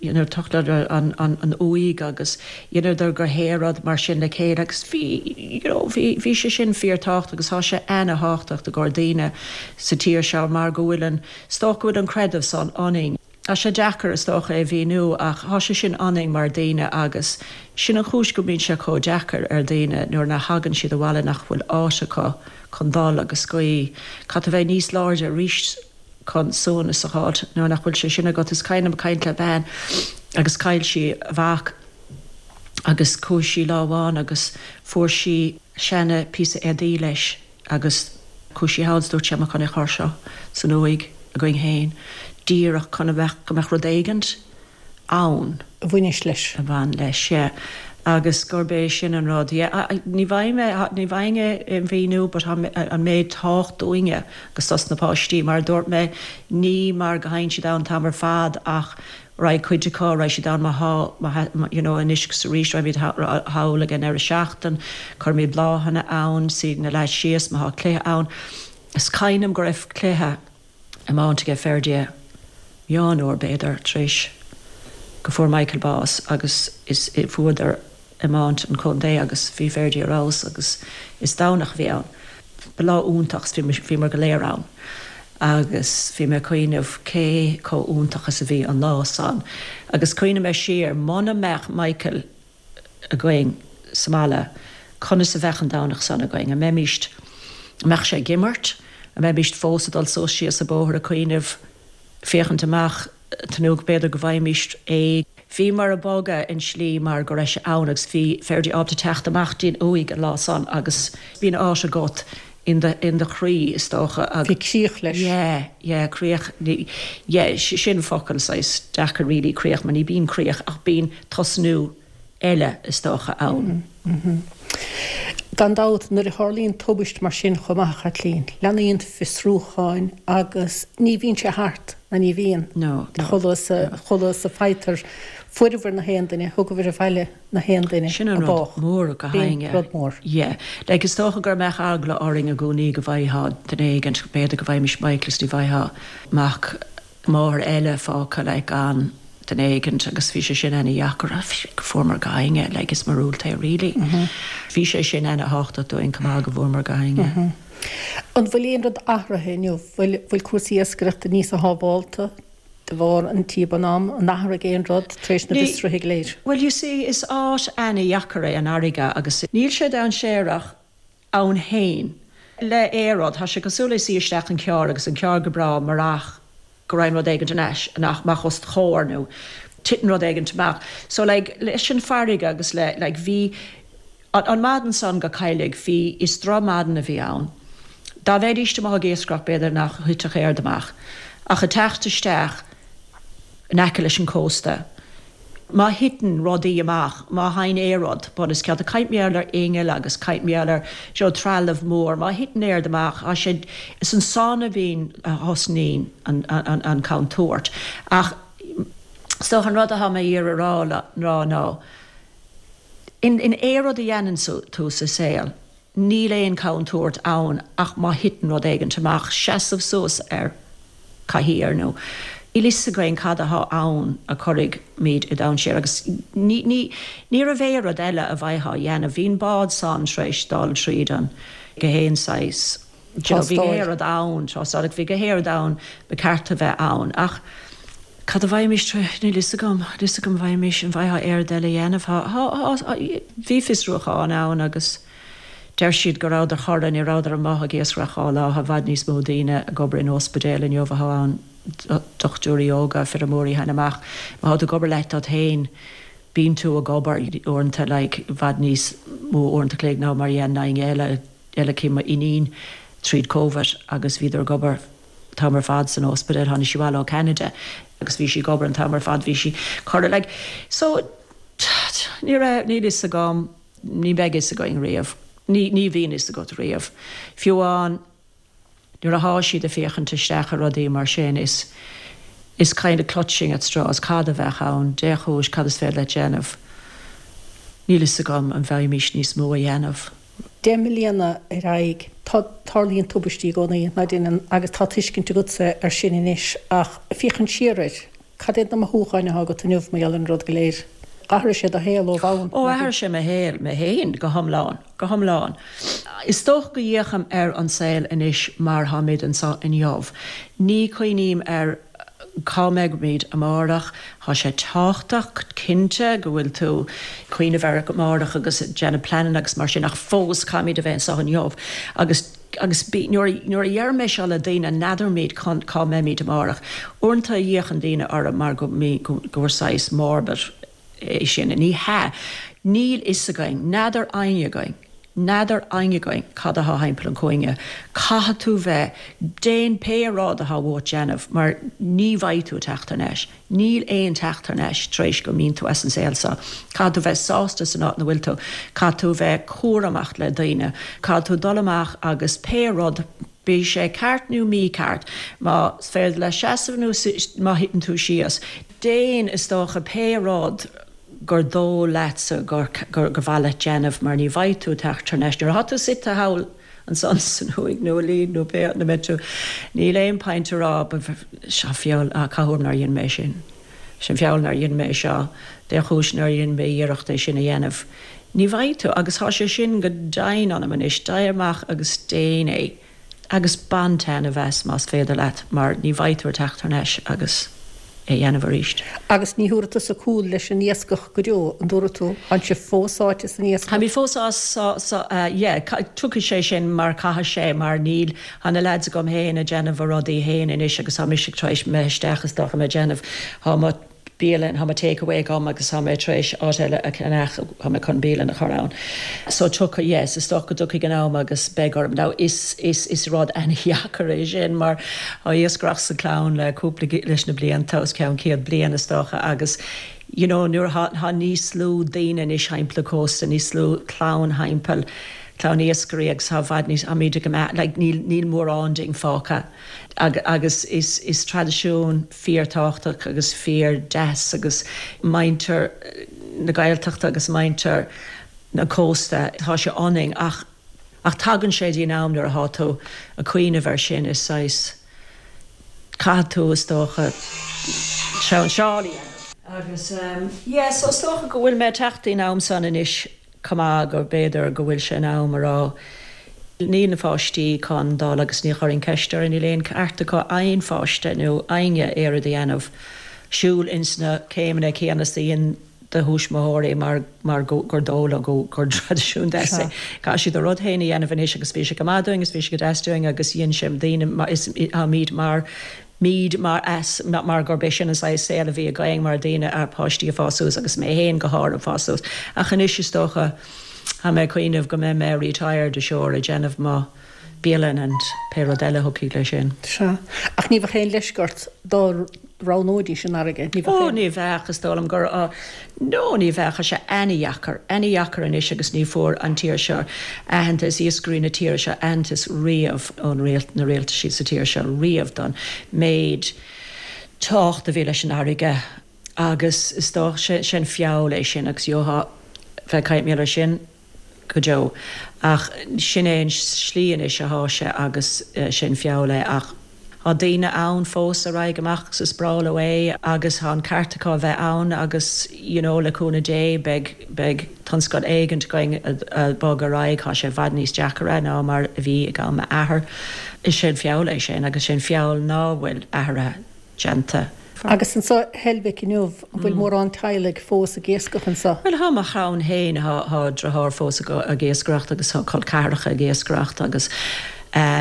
[SPEAKER 3] dheineadar tochladar an uaigh agus dheineadar gach aon rud mar sin le chéile agus bhí, you know, bhí, bhí sé sin fíor-tábhachtach agus tá sé ana-thábhachtach i gcomhair daoine sa tír seo mar go bhfuil an, is dócha go bhfuil an creideamh san ionainn. Tá sé deacair, is dócha, é a mhíniú, ach tá sé sin ionainn mar daoine agus sin an chúis go mbíonn sé chomh deacair ar daoine nuair nach thagann siad abhaile nach bhfuil áit acu chun dul agus guí. Caithfidh tú bheith níos láidre arís chun suaimhneas a fháilt nuair nach bhfuil sé sin agat. Is cuimhin liom caint le bean agus chaill sí a mhac agus chuaigh sí lá amháin agus fuair sí seana píosa éadaí leis. Agus chuaigh sí thall is dúirt sí tá mé chun é a chur seo san uaigh againn féin, díreach chun a bheith, go mbeadh rud éigint ann.
[SPEAKER 1] a bhaineas leis.
[SPEAKER 3] a bhain leis, yeah. Agus gurb é sin an rud, yeah. Ní bhfaighidh mé, ní bhfaighinn é a mhíniú but tá an méid tábhacht dúinne agus dos na páistí, mar a dúirt mé, ní mar go thagann siad ann an t-am ar fad ach Raghaidh cuid acu, raghaidh siad ann má thá, má thá, you know, anois agus arís, raghaimid thall ag an deireadh seachtain, cuirimid bláthanna ann, suífidh na leaids síos má thá cluiche ann. Is cuimhin liom go raibh cluiche iomáint aige Ferdia, meán uair b'fhéidir, tar éis go fuair Michael bás agus is, bhuadar iomáint an chontae agus bhí Ferdia ar fheabhas agus is Domhnach a bhí ann. Ba lá iontach is bhíomar go léir ann agus bhí mé ag cuimhneamh cé chomh iontach is a bhí an lá san agus cuimhnigh mé siar muna mbeadh Michael againn sa mbaile conas a bheadh an Domhnach san againn? An mbeimíst, an mbeadh sé ag imirt? An mbeimíst fós ag dul suas síos an bóthar ag cuimhneamh, féachaint amach tnúth b'fhéidir go bhfaighimíst é. Bhíomar ag bogadh in slí mar go raibh sé ann agus bhí Ferdia ábalta teacht amach dtí'n uaigh an lá san agus bíonn áit agat in do, in do chroí is dócha
[SPEAKER 1] agus. Bhí críoch leis.
[SPEAKER 3] Yeah, yeah, críoch, ní, yeah, sin focal saghas deacair really, críoch, mar ní bíonn críoch ach bíonn tosnú eile is dócha ann.
[SPEAKER 1] Gan dabht, nuair a tharlaíonn tubaist mar sin chomh maith, a Chaitlín, leanaíonn fiosrúcháin agus ní bhíonn sé thart, ná ní bhíonn.
[SPEAKER 3] No, no.
[SPEAKER 1] Chomh luath is a faightear fuaireabhair na haon duine, thugabhair abhaile na haon duine
[SPEAKER 3] Sin an rud mór go
[SPEAKER 1] B'in rud mór.
[SPEAKER 3] Yeah. Like, is dócha gur mbeadh eagla orainn i gcónaí go bhfaightheá duine éigint, b'fhéidir go bhfaighmis Michael is ní bhfaightheá mac máthair eile fágtha like gan duine éigint agus bhí sé sin ana dheacair go bhfuaireamar gach éinne like is míorúilt é really. Bhí sé sin ana thábhachtach dúinn chomh maith go bhfuaireamar gach éinne.
[SPEAKER 1] An bhfuil aon rud athraithe inniu? Bhfuil bhfuil cúrsaí iascaireachta níos sábhálta de bharr an tíobán am? An athraigh aon rud tar éis na bhfiosruithe go léir?
[SPEAKER 3] Well you see is áit ana dheacair é an fharraige agus níl sé dainséarach ann fhéin. Le aon rud, tá sé cosúil le suí isteach in carr agus an carr go breá marach. Go raibh rud éigint anois amach os do chomhair nó titeann rud éigint amach. So like leis an farraige agus le like bhí an maidin san go Cailligh bhí is droch maidin a bhí ann. Dá mbeidíst amuigh ag iascaireacht b'fhéidir nach thitfeadh aon rud amach ach ag teacht isteach in aice leis an cósta Má thiteann rudaí amach, má thagann aon rud, bun os cionn, tá caint mar gheall ar innill agus caint mar gheall ar, you know, trealamh mór, má thiteann aon rud amach, tá sé, is ansan a bhíonn, a thosnaíonn an, an, an contúirt. Ach is dócha an rud atá mé ag iarraidh a rá, rá ná, in, in aon rud a dhéanann tú sa saol, Níl aon chontúirt ann ach má thiteann rud éigint amach, seasamh suas ar chathaoir nó. Níl fhios againn cad athá ann a cuirfimid i dainséar agus ní, ní, ní raibh aon rud eile a bheifeá a dhéanamh. Bhí an bád san tar éis dul tríd an gach aon saghas, you know, bhí gach aon rud ann, tástáil, bhí gach aon rud ann ba ceart a bheith ann ach cad a bheimis tar éis, níl fhios agam, níl fhios agam bheimis, an bhfaightheá aon rud eile a dhéanamh, thá, thá, thá, bhí fiosrúchán ann agus deir siad go rabhadar chorra, ní rabhadar amuigh ag iascaireacht dhá lá, thá i bhfad níos mó daoine ag obair in ospidéal inniu athá ann, dochtúirí óga, feirmeoirí thagann amach, má thá tú ag obair leat duit féin, bíonn tú ag obair uaireanta like i bhfad níos mó uaireanta chloig ná mar a dhéanann éinne eile, eile cé m'iníon tríd Covid agus bhíodar ag obair an t-am ar fad san ospidéal, tháinig sí abhaile ó Canada agus bhí sí ag obair an t-am ar fad, bhí sí curtha like so ní raibh, níl fhios agam, ní bheidh fhios againn riamh, ní, ní bhíonn fhios agat riamh. Fiú amháin nuair athá siad ag féachaint isteach ar rudaí mar sin is, is kind of clutching at straws, cad a bheadh ann, dé chúis, cad is féidir leat déanamh, níl fhios agam an bhfaighimís níos mó a dhéanamh.
[SPEAKER 1] 10 mbliana ar aghaidh. Tá, tarlaíonn tubaistí i gcónaí, ná deineann, agus tá tuiscint agatsa air sin anois, ach féachaint siar air, cad iad na mothúcháin atá agat inniu mar gheall ar an rud go léir? Athraigh sé do shaol ó bhonn,
[SPEAKER 3] Ó, athraigh sé mo shaol, mé féin, go hiomlán, go hiomlán. Is dócha go bhféachaim ar an saol anois mar tháimid anseo inniu. Ní chuimhním ar. cá mbeimid amárach. Tá sé tábhachtach, cinnte, go bhfuil tú ag cuimhneamh ar amárach agus ag déanamh pleananna agus mar sin ach fós caithfimid a bheith anseo inniu agus agus bí, nuair a, nuair a deirim é seo le daoine, n'fheadairmid cá mbeimid amárach. Uaireanta fhéachann daoine orm mar go, go, gur saghas morbid é sin. Ní hea. Níl fhios againn. N'fheadar éinne againn. N'fheadar éinne againn cad athá thimpeall an chúinne. Caithfidh tú bheith, déan pé rud athá uait déanamh mar ní bheidh tú ag teacht thar n-ais. Níl aon teacht thar n-ais tar éis go mbíonn tú as an saol seo. Caithfidh tú bheith sásta san áit ina bhfuil tú. Caithfidh tú bheith cúramach le daoine. Caithfidh tú dul amach agus pé rud, bíodh sé ceart nó mícheart, más féidir leat seasamh nó má thiteann tú síos, déan, is dócha, pé rud gur dóigh leatsa gur mhaith leat déanamh mar ní bheidh tú ag teacht thar n-ais. Nuair atá tú suite thall ansan san uaigh nó i Leeds nó pé áit ina mbeidh tú, níl aon point a rá seo feall, ah cá huair nár dhein mé sin, sin feall nár dhein mé seo, dé chúis nár dhein mé iarracht é sin a dhéanamh. Ní bheidh tú, agus tá sé sin go deimhin ionam anois, téigh amach agus déan é. Agus bain taitneamh as más féidir leat mar ní bheidh tú ag teacht thar n-ais agus é a dhéanamh arís.
[SPEAKER 1] Agus ní thabharfaidh tusa cúl leis an iascach go deo, an dtabharfaidh tú? Tánn sibh fós sáite san iascach?
[SPEAKER 3] Táimid fós sáite, yeah, tiocfaidh sé sin mar caithfidh sé mar níl, tá na leaids agam féin ag déanamh a rudaí féin anois agus tá mise tar éis imeacht isteach is dócha mé ag déanamh, tá mo. bialann, tá mo take away agam agus tá mé tar éis áit eile a cheannach, tá mé chun bialann a chur ann. So tiocfaidh, yes, is dócha go dtiocfaidh an am agus beidh orm. Now is, is, is rud an-dheacair é sin mar tá iascaireacht sa chlann le cúpla, leis na blianta, os cionn 100 bliain is dócha agus you know nuair atá, tá níos lú daoine anois thimpeall an cósta, níos lú clann thimpeall, clann iascairí agus tá i bhfad níos, táimid ag, like níl, níl mórán dínn fágtha agus is, is traidisiún, fíor-tábhachtach agus fíor-deas agus muintir na Gaeltachta agus muintir na cósta, tá sé ionainn ach ach tagann sé dtí an am nuair atá tú ag cuimhneamh air sin is saghas caithfidh tú is dócha seál a dhéanamh. Agus yeah so is dócha go bhfuil mé ag teacht dtí'n am san anois. chomh maith go b'fhéidir go bhfuil sé in am a rá níl na pháistí chun dul agus ní chuirfinn ceist orthu, níl aon ceart acu aon pháiste nó éinne aon rud a dhéanamh, siúl ins na céimeanna céanna is a dhein do thuismitheoirí mar mar gur dóigh leo go gur traidisiún deas é. Caithfidh siad a rud féin a dhéanamh anois agus bhí sé go maith dúinn agus bhí sé go deas dúinn agus dhein sé daoine is táimid mar. Míd mar as mar gurb é sin an saghas saol a bhí againn mar daoine, páistí ag fás suas agus mé fhéin go háirithe ag fás suas. Ach anois is dócha tá mé ag cuimhneamh go mbeidh mé retired sure ag déanamh mo bialann and pé rud eile a thiocfaidh leis sin.
[SPEAKER 1] Sea. Ach ní bheadh aon leisce ort dá roghnóidís an fharraige,
[SPEAKER 3] ní bheadh aon. Ó ní bheadh, is dóigh liom gur, no ní bheadh, tá sé ana-dheacair, ana-dheacair anois agus ní fuair an tír seo aitheantas, iascairí na tíre seo aitheantas riamh ón rialt, na rialtaisí sa tír seo riamh don méid tábhacht a bhí leis an fharraige agus is dócha, sé an feall é sin agus gheofá bheith ag caint mar sin. go deo. Ach sin é an slí anois athá sé agus sin feall é. Ach thá daoine ann fós a raghaidh amach agus is breá leo é agus thá an ceart acu a bheith ann agus you know le cúnamh Dé beidh, beidh tionscal éigint againn a bog ar aghaidh. Thá sé i bhfad níos deacaire ná mar a bhí ag am m'athar. Is sé an feall é sin agus sé an feall ná bhfuil athruithe déanta.
[SPEAKER 1] Agus anso i Heilbhic inniu, an bhfuil mórán teaghlaigh fós ag iascach anso?
[SPEAKER 3] Bhuel, thá mo chlann féin, thá driotháir fós ag iascaireacht agus thá col ceathracha ag iascaireacht agus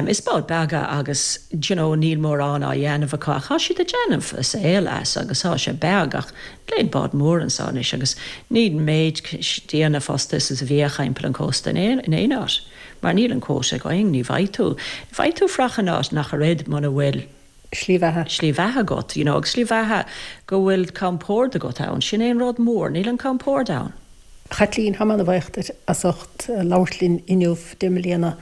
[SPEAKER 3] is báid beaga agus d'you know níl mórán á dhéanamh acu ach thá siad ag déanamh a saol as agus thá sé beag ach níl aon bád mór anso anois agus níl an méid daoine fostaithe is a bhíodh thimpeall an cósta in aon áit mar níl an quota againn, ní bhfaighidh tú, ní bhfaighidh tú fraoch in áit ach oiread muna bhfuil.
[SPEAKER 1] slí bheatha.
[SPEAKER 3] slí bheatha agat, you know, agus slí bheatha go bhfuil compord agat ann, sin é an rud mór, níl an compord ann.
[SPEAKER 1] A Chaitlín, tá mé ana-bhuíoch duit as ucht labhairt linn inniu, 10 mbliana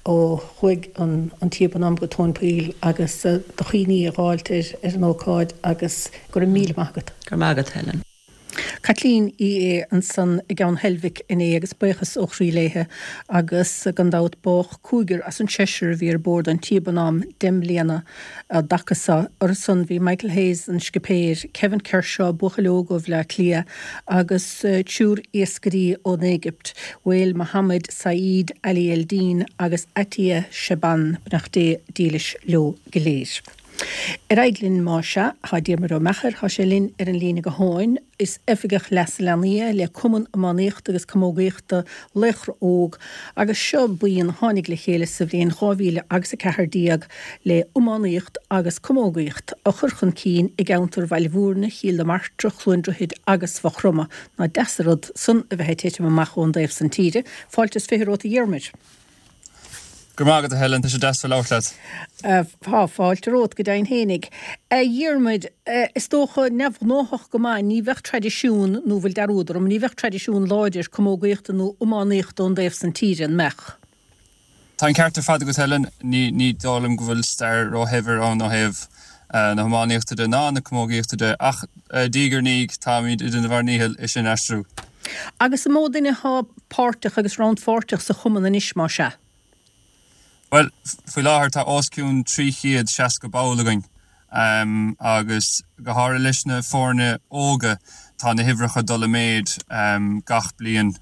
[SPEAKER 1] ó chuaigh an T Bonhomme go tóin poill agus do chuimhní a dh'fháilt ar an ócáid agus go raibh míle maith agat.
[SPEAKER 3] Go raibh maith agat, Helen.
[SPEAKER 1] Caitlín Uí Aodha ansan i gCeann Heilbhic inné agus buíochas ó chroí léithe agus gan dabht bádh cúigear as an seisear a bhí ar bord an T Bonhomme 10 mbliana an dtaca so. Orthu san bhí Michael Hayes, an scipéir, Kevin Kershaw, buachaill óg ó Bhleá Cliath agus triúr iascairí ón Éigipt, Wael Mohamed Saeed Ali Eldin agus Atia Shaban, beannacht Dé dílis leo go léir. Ar aghaidh linn más ea, tá Diarmuid Ó Meachair, tá sé linn ar an líne gutháin. Is Oifigeach Leasa Leanaí é le Cumann Iománaíochta agus Camógaíochta Laochra Óg agus seo buíon a tháinig le chéile sa bhliain 2000 agus 14 le iománaíocht agus camógaíocht a chur chun cinn i gceantar Bhaile Bhúirne, Chill na Martra, Chluain Droichid agus Mhaigh Chromtha. Nach deas an rud san a bheith ag titim amach ón dtaobh san tíre. Fáilte is 20 romhat a Dhiarmuid.
[SPEAKER 4] Go raibh maith agat, a Helen, tá sé deas bheith ag labhairt
[SPEAKER 1] leat. Tá fáilte romhat go deimhin fhéinig. A Dhiarmuid, is dócha, neamhghnóthach go maith, ní bheadh traidisiún, nó bhfuil dearúd orm, ní bheadh traidisiún láidir camógaíochta nó iománaíochta ón dtaobh san tíre, an mbeadh?
[SPEAKER 4] Tá an ceart ar fad agat, Helen. Ní, ní dóigh liom go bhfuil stair róshaibhir ann ó thaobh na hiománaíochta de ná na camógaíochta de, ach diaidh ar ndiaidh táimid ag déanamh ár ndícheall é sin a aistriú.
[SPEAKER 1] Agus an mó duine atá páirteach agus rannpháirteach sa chumann anois, más ea?
[SPEAKER 4] Bhuel, faoi láthair tá os cionn 360 ball againn agus go háirithe leis na foirne óga tá na huimhreacha ag dul i méid gach bliain.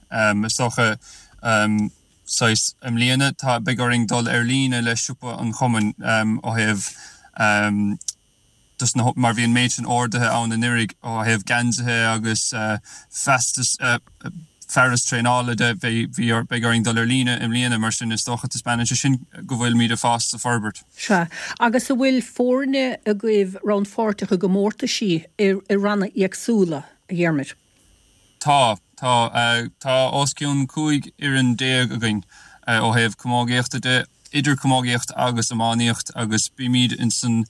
[SPEAKER 4] Is dócha saghas i mbliana tá, beidh orainn dul ar líne le siopa an chumainn ó thaobh dos na, mar bhí an méid sin orduithe ann anuraidh ó thaobh geansaithe agus feastas, fearas traenála de, bhí, bhí, beidh orainn dul ar líne i mbliana, mar sin is dócha taispeánann sé sin go bhfuilimid ag fás is ag forbairt.
[SPEAKER 1] Sea. Agus an bhfuil foirne agaibh rannpháirteach i gcomórtaisí i, i ranna éagsúla, a Dhiarmuid?
[SPEAKER 4] Tá, tá. Tá os cionn 15 fhoireann againn ó thaobh camógaíochta de, idir camógaíocht agus iománaíocht agus bímid insan,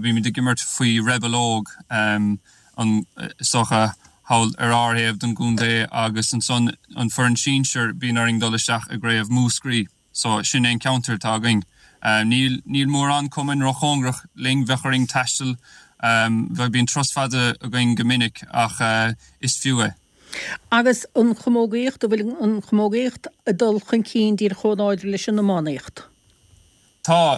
[SPEAKER 4] bímid ag imirt faoi Rebel Óg, an, is dócha, thall ar ár thaobh den gcontae agus ansan an foireann sinsir, bíonn orainn dul isteach i gcraobh Mhúscraí. So, sin é an ceantar atá againn. Níl, níl mórán cumainn róchóngarach linn, bheadh orainn taisteal, bheadh, bíonn turas fada againn go minic ach is fiú é.
[SPEAKER 1] Agus an chamógaíocht, an bhfuil an chamógaíocht ag dul chun cinn díreach chomh láidir leis an iománaíocht?
[SPEAKER 4] Tá.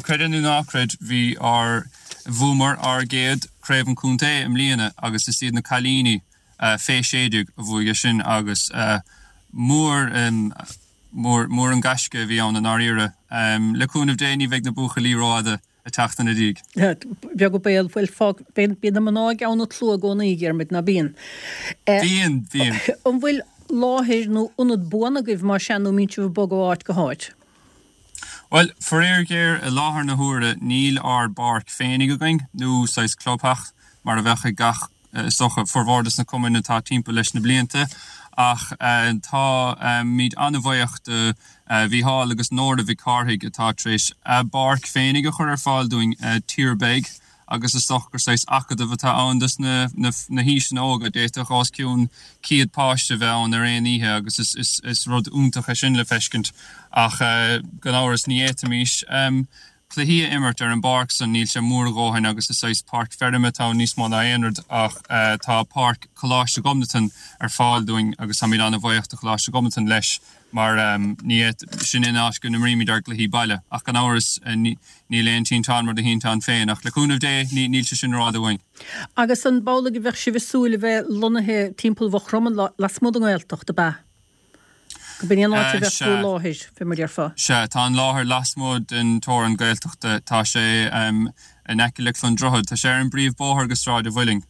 [SPEAKER 4] Creid é nó ná creid, bhí ár, bhuamar ár gcéad Craobh an Chontae i mbliana agus is iad na cailíní fé 16 a bhuaigh é sin agus mór, Mór, mór an gaisce a bhí ann i ndáiríre. Le cúnamh Dé ní bheidh na buachaillí rófhada ag teacht ina
[SPEAKER 1] ndiaidh. Beag an baol, bhuel, fág, bíonn, bíonn na mná i gceann an tslua i gcónaí, a Dhiarmuid, ná bíonn?
[SPEAKER 4] Bíonn, bíonn.
[SPEAKER 1] An bhfuil láthair nó ionad buan agaibh, más ea, nó an mbíonn sibh ag bogadh ó áit go háit?
[SPEAKER 4] Bhuel, faraor géar, i láthair na huaire níl ár bpáirc féinig againn, nó saghas clubtheach, mar a bheadh ag gach, is dócha, formhór des na cumainn atá timpeall leis na blianta. Ach táimid an-bhuíoch do Mhícheál agus Nóra Mhic Cárthaigh atá tar éis a bpáirc féinig a chur ar fáil dúinn, Tír Beag. agus is dócha gur saghas acadamh atá ann dos na haoiseanna óga. D'fhéadfadh os cionn 100 páiste bheith ann ar aon oíche agus is rud iontach é sin le feiscint. Ach gan amhras ní fhéadfaimis cluichí a imirt ar an bpáirc san, níl sé mór a dhóthain agus is saghas páirc feirme atá ann níos mó ná aon rud ach tá páirc Choláiste Ghobnatan ar fáil dúinn agus táimid an-bhuíoch do Choláiste Ghobnatan leis. mar ní sin an áit go n-imrímid ár gcluichí baile. Ach gan amhras, níl aon tinteán mar do thinteán féin. Ach le cúnamh Dé, níl sé sin rófhada uainn.
[SPEAKER 1] Agus an amhlaidh a bheadh sibh ag súil a bheith lonnaithe timpeall Mhaigh Chromtha lasmuigh den nGaeltacht, ab ea? Go b'in í an áit a bheadh bhur láthair, fé mar a déarfá.
[SPEAKER 4] Sea, tá an láthair lasmuigh den teorainn Gaeltachta. Tá sé in aice le Clondrohid. Tá sé ar an bpríomhbóthar go Sráid a' Mhuilinn.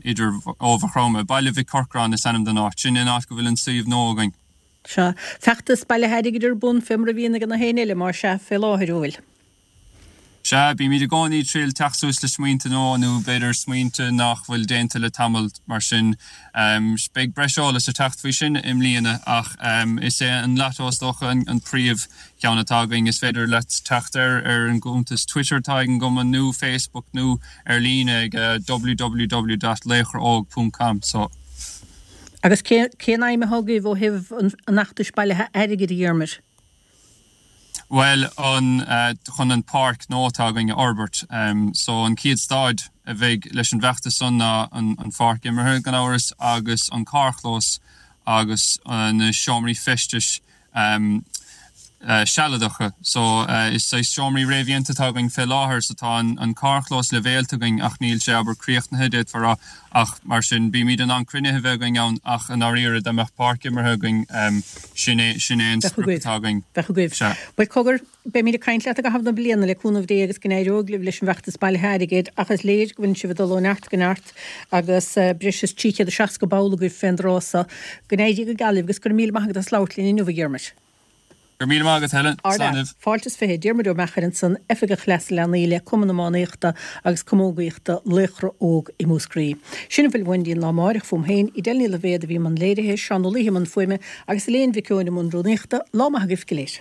[SPEAKER 4] Idir ó Mhaigh Chromtha. Baile Mhic Corcráin is ainm don áit. Sin an áit go bhfuil an suíomh nua againn.
[SPEAKER 1] Sea. Feachtas bailithe airgid ar bun fé mar a bhíonn ag na héinne eile, más ea, fé láthair, an bhfuil?
[SPEAKER 4] Sea, bímid i gcónaí ag triail teacht suas le smaointe nua nó b'fhéidir smaointe nach bhfuil déanta le tamall, mar sin. Beidh breis eolais ag teacht faoi sin i mbliana ach is é an Lotto is dócha an príomh cheann atá againn. Is féidir leat teacht air ar an gcuntas Twitter atá ag an gcumann nó Facebook nó ar líne ag www dot laochraóg ponc com. So.
[SPEAKER 1] Agus cén aidhm atá agaibh ó thaobh an fheachtais bailithe airgid, a Dhiarmuid?
[SPEAKER 4] Bhuel, an, chun an páirc nua atá againn a fhorbairt. So an chéad staid a bheidh leis an bhfeachtas san ná an pháirc imeartha, gan amhras, agus an carrchlós agus na seomraí feistis sealadacha. So, is saghas seomraí réamhdhéanta atá againn fé láthair. So tá an carrchlós leibhéalta againn ach níl sé, abair, críochnaithe, d'fhéadfá a rá. Ach mar sin, bímid in ann cruinnithe a bheith againn ann ach i ndáiríre, dá mbeadh páirc imeartha againn, sin é, sin é an sprioc atá againn.
[SPEAKER 1] Bheadh agaibh. Sea. Bhuel, cogar, beimid ag caint leat i gcaitheamh na bliana, le cúnamh Dé agus go n-éireoidh libh leis an bhfeachtas bailithe airgid ach is léir go bhfuileann sibh ag dul ó neart go neart. agus breis is 360 ball agaibh fén dtráth so. Go n-éirí go geal libh agus go raibh míle maith agat as labhairt linn inniu, a Dhiarmuid.
[SPEAKER 4] Go raibh míle maith agat, Helen.
[SPEAKER 1] Slán libh. Fáilte is 20. Diarmuid Ó Meachair ansan, Oifigeach Leasa Leanaí le Cumann Iománaíochta agus Camógaíochta Laochra Óg i Múscraí. Sin a bhfuil uainn go dtí an lá amáireach fúm féin, Edel Ní Loibhéad a bhí i mbun léirithe, Seán Ó Laoithe i mbun fuaime agus Elaine Mhic Eoin i mbun rúnaíochta. Lá maith agaibh go léir.